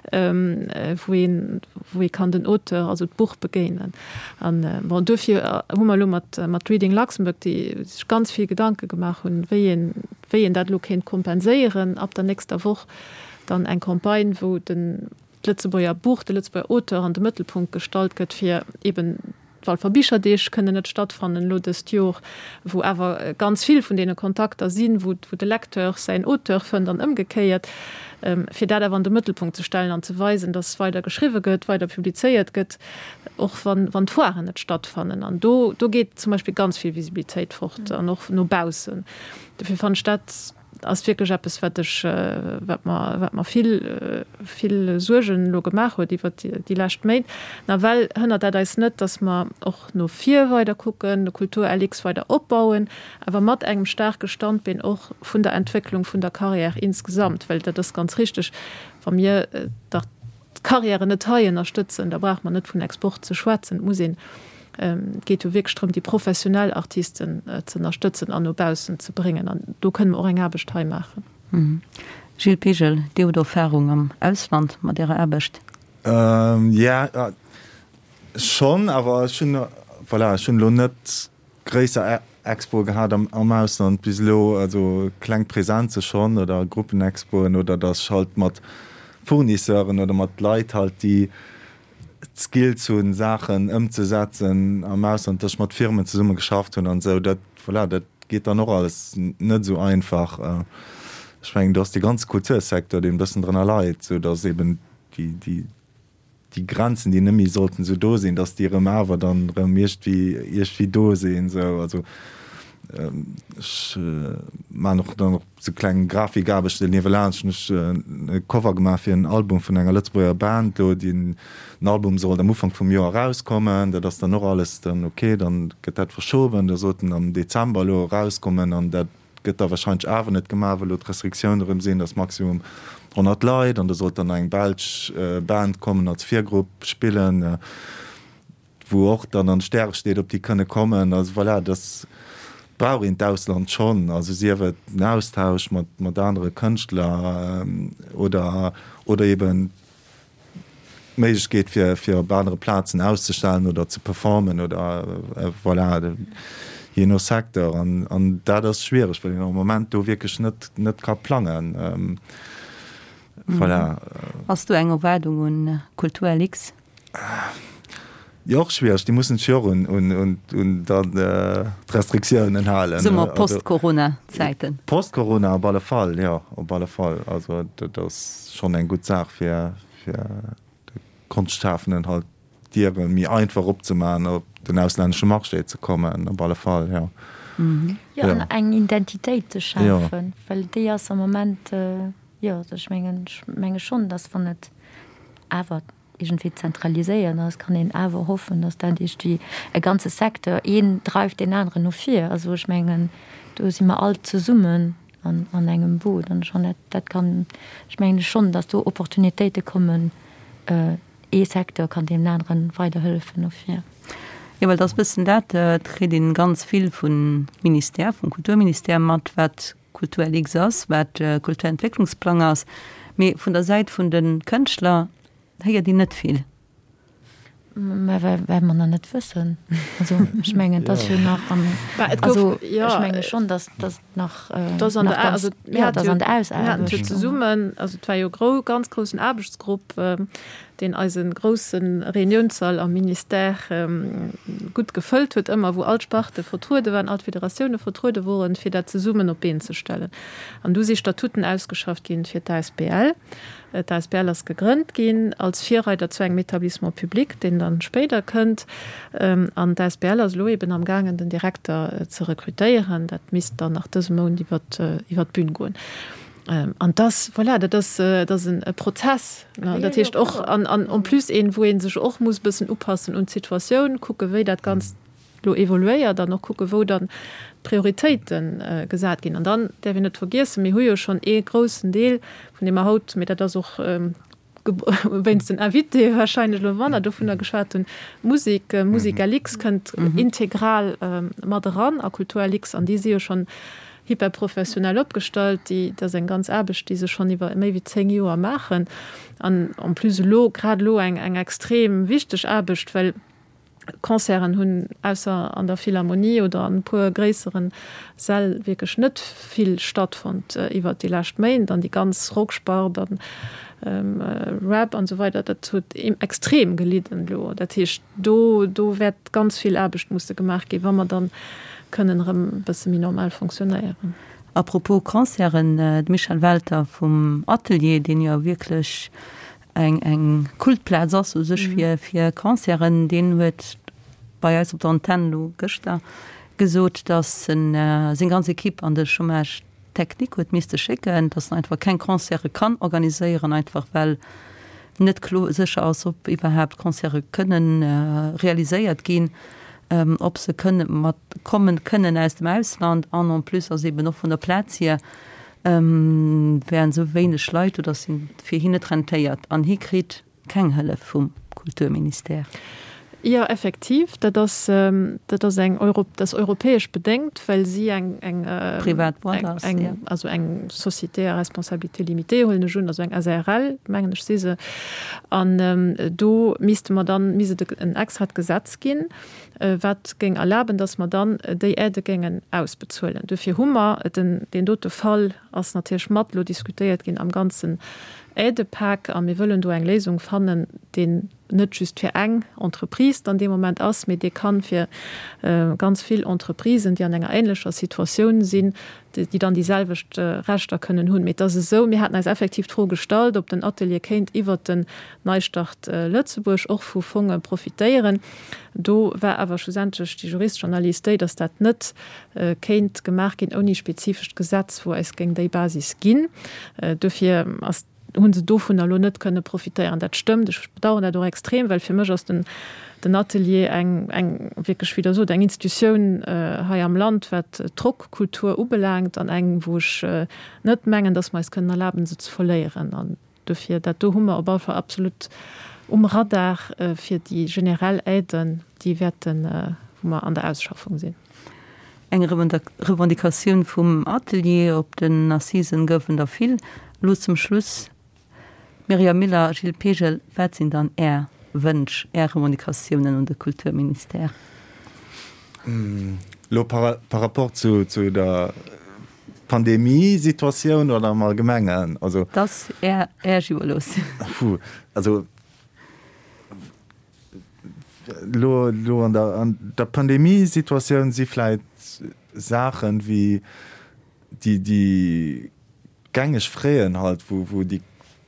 wou een, wou ee kann den Auteur, also d'Buch begéinen. An bon, duerfir hu mer elo mat, mat Reading Luxembourg, déi sech ganz vill Gedanke gemaach hunn, wéi een, wéi een dat elo kéint kompenséieren, ab der nächster Woch dann eng Campagne, wou den d'Lëtzebuerger Buch, de Lëtzebuerger Auteur an de Mëttelpunkt gestallt gëtt, fir eben d'Walfer Bicherdeeg kënnen net stattfannen elo dëst Jor, wou awer ganz vill vun deene Kontakter sinn, wou de Lecteur säin Auteur fënnt an ëmgekéiert, fir dat awer an de Mëttelpunkt ze stellen an ze weisen, dass weider geschriwwe gëtt, weider publizéiert gëtt, och wann d'Foiren net stattfannen. An do do geet zum Beispill ganz vill Visibilitéit fort an och no baussen. Dofir fannen ech dat. ass wierklech eppes, wat ech, wat mer, wat mer vill, vill Suergen elo gemaach huet iwwert déi lescht Méint. Nawell hënnert dat eis net, dass mer och no vir weider kucken, de Kultur-LX weider opbauen, awer mat engem staarke Standbeen och vun der Entwécklung vun der Carrière insgesamt, well dat ass ganz richtig, wa mir dach d'Carrièren net hei ënnerstëtzen, da brauche mer net vun Export ze schwätzen. Et muss een, et geet jo wierklech drëm, déi professionell Artisten ze ënnerstëtzen an no baussen ze bréngen. An do kënne mer och eng Aarbecht hei maachen. Gilles Pegel, Dir hutt Erfahrung am Ausland mat Ärer Aarbecht. Jo, schonn, awer ech hunn, voilà, ech hunn elo net gréisser Expoe gehat am Ausland bis elo, also kleng Presenze schonn oder Gruppenexpoen oder datt ech halt mat Fournisseuren oder mat Leit halt, déi d'Skills hunn, Saachen ëmzesetzen am Ausland, datt ech mat Firmen zesumme geschafft hunn an esou. Dat, voilà, dat geet dann och alles net esou einfach. Ech mengen, do ass dee ganze Kultursecteur, deen e bëssen drënner leit, sou datt eben déi, déi, déi Grenzen, déi net méi sollten esou do sinn, dass déi erëm awer dann erëm iergendwéi, iergendwéi do sinn esou. Also ech maachen och dann och sou kleng Grafikaarbechten niewelaanscht. Hunn ech e Cover gemaach fir en Album vun enger Lëtzebuerger Band do, déi den Album sollt am Ufank vum Joer erauskommen. Dat ass dann och alles dann ok, dann gëtt dat verschoben, da sollt en am Dezember elo erauskommen an dat Gëtt da wahrscheinlech awer net gemaach, well elo d'Restriktioune erëm sinn, dass maximum 100 Leit an da sollt dann nach eng belsch Band kommen als Virgrupp spillen, wou och dann an de Stäre steet, ob déi kënne kommen. Also voilà, dass brauch een d'Ausland schonn, also sief et den Austausch mat mat anere Kënschtler oder oder eben d'Méiglechkeet fir fir op anere Plazen auszestellen oder ze performen oder voilà, jee no Secteur. An an dat ass schwiereg, well een am Moment do wierklech net net ka plangen. Voilà. Ass do eng Erwaardung un Kultur LX? Jo, och schwiereg. Déi mussen sech jo och un, un, un, un dann d'Restriktiounen halen. Soe mer Post-Corona-Zäiten. Post-Corona op alle Fall, jo, op alle Fall. Also dat ass schonn eng gutt Saach fir, fir de Konschtschafenden halt d'Diere méi einfach opzemaachen, op den auslännesche Marché ze kommen, op alle Fall, jo. Jo, an eng Identitéit ze schafen, well déi ass am Moment, jo, also ech mengen, ech menge schonn, datt wann et awer iergendwéi zentraliséiert ass, kann een awer hoffen, datt dat iergendwéi e ganze Secteur, een dreift deen aneren no vir. Also ech mengen, do si mer all zesummen an an engem Boot an schonn dat dat kann, ech mengen schonn, datt do Opportunitéite kommen, ee Secteur kann deem aneren weiderhëllefen no vir. Jo, well et ass e bëssen dat, et kritt een ganz vill vum Ministère, vum Kulturministère mat, wat Kulturlix ass, wat Kulturentwécklungsplang ass, mee vun der Säit vun de Kënschtler héiert een net vill. Mä well mer nach net wëssen. Also ech mengen, et ass jo nach am, also ech menge schonn, datt datt nach, nach ganz, jo, et ass an der Ausaarbecht. Mir haten jo zesummen, also et war jo e ganz groussen Aarbechtsgrupp, deen eise grousse Reuniounssall am Ministère gutt gefëllt huet ëmmer, wou all d'Sparte vertruede waren, all d'Federatioune vertruede woren, fir dat zesummen op d'Been ze stellen. An du si Statuten ausgeschafft ginn fir d'ASBL. D'ASBL ass gegrënnt ginn als Virreider zu engem Établissement public, deen dann spéider kënnt. An d'ASBL ass elo eben amgaangen, den Direkter ze rekrutéieren. Dat misst dann nach dëse Mount iwwert d'Bün goen. An dass, voilà, dat ass, dat ass e Prozess, ne? Dat heescht och, an, an en plus een, wou ee sech och muss e bëssen upassen un d'Situatioun, kucke wéi dat Ganzt elo evoluéiert an och kucke wou dann d'Prioritéite gesat ginn. An dann däerf een net vergiessen, mir hu jo schonn ee groussen Deel, vun deem mer haut, mee dat ass och wéinst den Invitéë wahrscheinlech elo manner dovunner geschwat hunn, d'Musek, Musicalix kënnt integral mat eran a Kulturalix an déi si jo schonn hyperprofessionell opgestallt. Déi, dat ass eng ganz Aarbecht, déi se schonn iwwer méi wéi 10 Joer maachen an en plus elo, grad elo eng eng extrem wichteg Aarbecht, well Concerten hunn ausser an der Philharmonie oder an e puer gréisseren Säll wierklech net vill stattfonnt iwwert déi lescht Méint an déi ganz Rockspart an Rap an esou weider, dat huet extrem gelidden elo. Dat heescht, do do wäert ganz vill Aarbecht musse gemaach ginn, wa mer dann kënnen erëm e bësse méi normal fonctionnéieren. A propos Concerten, de Michel Welter vum Atelier, deen jo wierklech eng eng Kultplaz ass u sech fir fir Concerten, deen huet bei eis op der Antenn elo gëschter gesot, datt en seng ganz Equipe an de Chômage. Technique huet misste schécken, dass en einfach keng Concerte kann organiséieren, einfach well net klo sécher ass, ob iwwerhaapt Concerte kënnen realiséiert ginn, ob se kënne mat kommen kënnen aus dem Ausland. An en plus ass eben och vun der Plaz hier wären esou wéineg Leit do, dass et fir hien net rentéiert an hie kritt Keng Hëllef vum Kulturministère? Jo, effektiv, dat ass, dat ass eng Euro, dat ass europäesch bedéngt, well si eng, eng, Privat Boîte ass, eng, jo. also eng Société à responsabilité limitée, huelen ech un, also eng SARL, mengen ech, si se. An do misste mer dann, misst et en extrat Gesetz ginn, wat géing erlaben, dass mer dann déi Aidë géingen ausbezuelen. Duerfir hu mer den, deen dote Fall ass natierlech mat elo diskutéiert ginn am ganzen Aidepak a mir wëllen do eng Léisung fannen, deen net just fir eng Entreprise dann dee Moment ass, mee dee kann fir ganz vill Entreprisen, déi an enger ähnlecher Situatioun sinn, déi dann déi selwecht Rechter kënnen hunn. Mee et ass esou, mir haten eis effektiv d'Fro gestallt, ob den Atelier kéint iwwert den Neistart Lëtzebuerg och vu Fonge profitéieren. Do war awer schlussendlech déi juristesch Analys déi, dass dat net kéint gemaach ginn ouni spezifescht Gesetz, wou eis géing déi Basis ginn. Duerfir ass, hu se dovunner elo net kënne profitéieren. Dat stëmmt. Ech bedauern dat och extrem, well fir mech ass den, den Atelier eng, eng wierklech, wéi Der sot, eng Institutioun hei am Land, wat d'Rockkultur ubelaangt, an eng, wou ech net mengen, dass mer eis kënnen erlaben, se ze verléieren. An Dofir, dat do hu mer op alle Fall absolut um Radar fir déi generell Aiden, déi wäerten, wou mer an der Ausschaffung sinn. Eng Revendicatioun vum Atelier op den Assisen goufen der vill. Elo zum Schluss, Myriam Miller, Gilles Pegel, wat sinn dann Är Wënsch, Är Revendicatiounen un de Kulturministère? Elo par rapport zu der Pandemiesituatioun oder am Allgemengen? Also. Dat ass Är, Äech iwwerlooss. Puh, also elo, elo an der, an der Pandemiesituatioun si vläit Saachen wéi déi, déi gängeg Fräen halt, wou, wou déi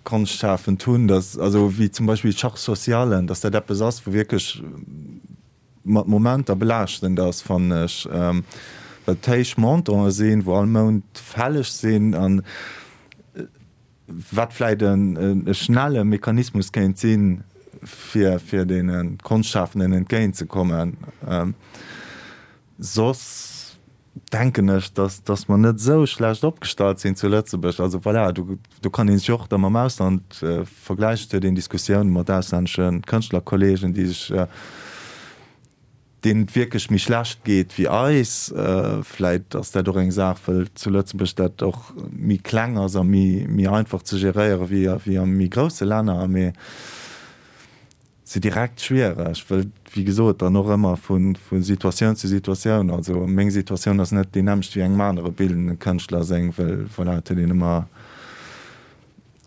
Konschtschafend hunn, dass, also wéi zum Beispill d'Charge sociale, dass dat eppes ass, wou wierklech mat Momenter belaaschtend ass, fannen ech, well et héich Montanten sinn, wou all Mount fälleg sinn an wat vläit e schnelle Mechanismus kéint sinn, fir fir deene Konschtschafenden entgéintzekommen. Soss denken ech, dass dass mer net esou schlecht opgestallt sinn zu Lëtzebuerg. Also voilà, do do kann ee sech och da mam Ausland vergläichen. Et huet een Diskussiounen mat auslännesche Kënschtlerkollegen, déi sech, deenen et wierklech méi schlecht geet wéi eis. Vläit ass dat och eng Saach, wëll zu Lëtzebuerg dat och méi kleng ass a méi méi einfach ze geréiere wéi wéi a méi grousse Länner. Mee Se direkt schwiereg, wëll wéi gesot dann och ëmmer vu Situatioun zu Situatioun, also meng Situatioun ass net déi nämmlecht wéi engem anere bildende Kënschtler seng, wëll voilà, et huet een ëmmer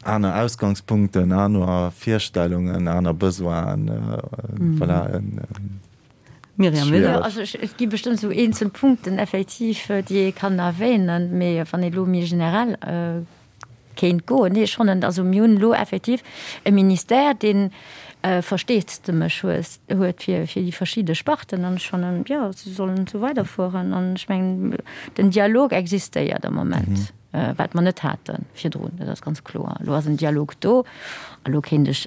aner Ausgangspunkten, aner Virstellungen, aner Besoinen, voilà. Myriam Müller. Jo, also et gi bestëmmt esou eenzel Punkten effektiv, déi ee kann erwähnen, mee wann ee elo méi generell Kéint goen. Nee, ech fannen, also mir hunn elo effektiv e Ministère, dee Versteesdemech huet fir déi verschidde Sparten. An ech fannen, jo, se sollen esou weiderfueren. An ech mengen, den Dialog existéiert am Moment, wat mer net hate virdrun. Dat ass ganz kloer. Elo ass en Dialog do. A lo kéint ech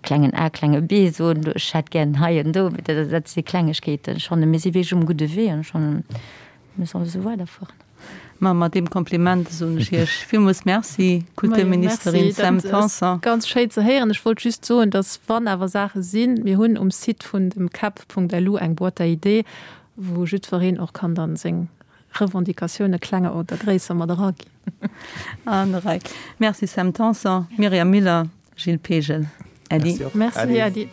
klengen a, klenge b soen, ech hätt gären hei an do. Dat si Klengegkeeten. Ech fannen, mir si wierklech um gudde Wee. An ech fannen, mir solle esou weiderfueren. Ma mat deem Kompliment soen ech Iech villmools Merci, Kulturministerin Sam Tanson. Ganz schéin ze héieren. Ech wollt just soen, dass wann awer Saache sinn, mir hunn um Site vun dem cap.lu eng Boîte à idées, wou jiddwereen och kann dann seng Revendicatioune klenger oder gréisser mat eraginn. An der Rei. Merci Sam Tanson, Myriam Miller. Gilles Pegel, Äddi. Merci, Äddi.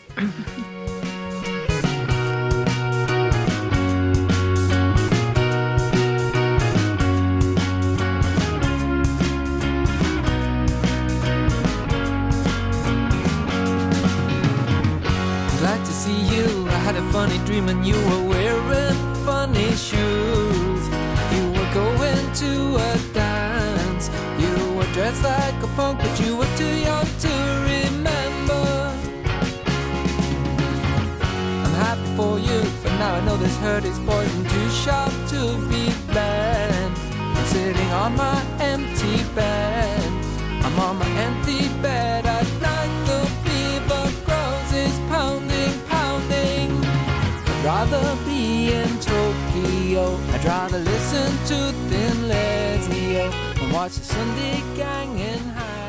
Glad to see you. I had a funny dream and you were wearing funny shoes. You were going to a dance. You were dressed like a punk, but you were too young to remember. I'm happy for you, but now I know this hurt is poison too sharp to be bent. sitting on my empty bed. I'm on my empty bed at night. The fever grows, is pounding, pounding. I'd rather be in Tokyo. I'd rather listen to Thin Lizzy and watch the Sunday gang in.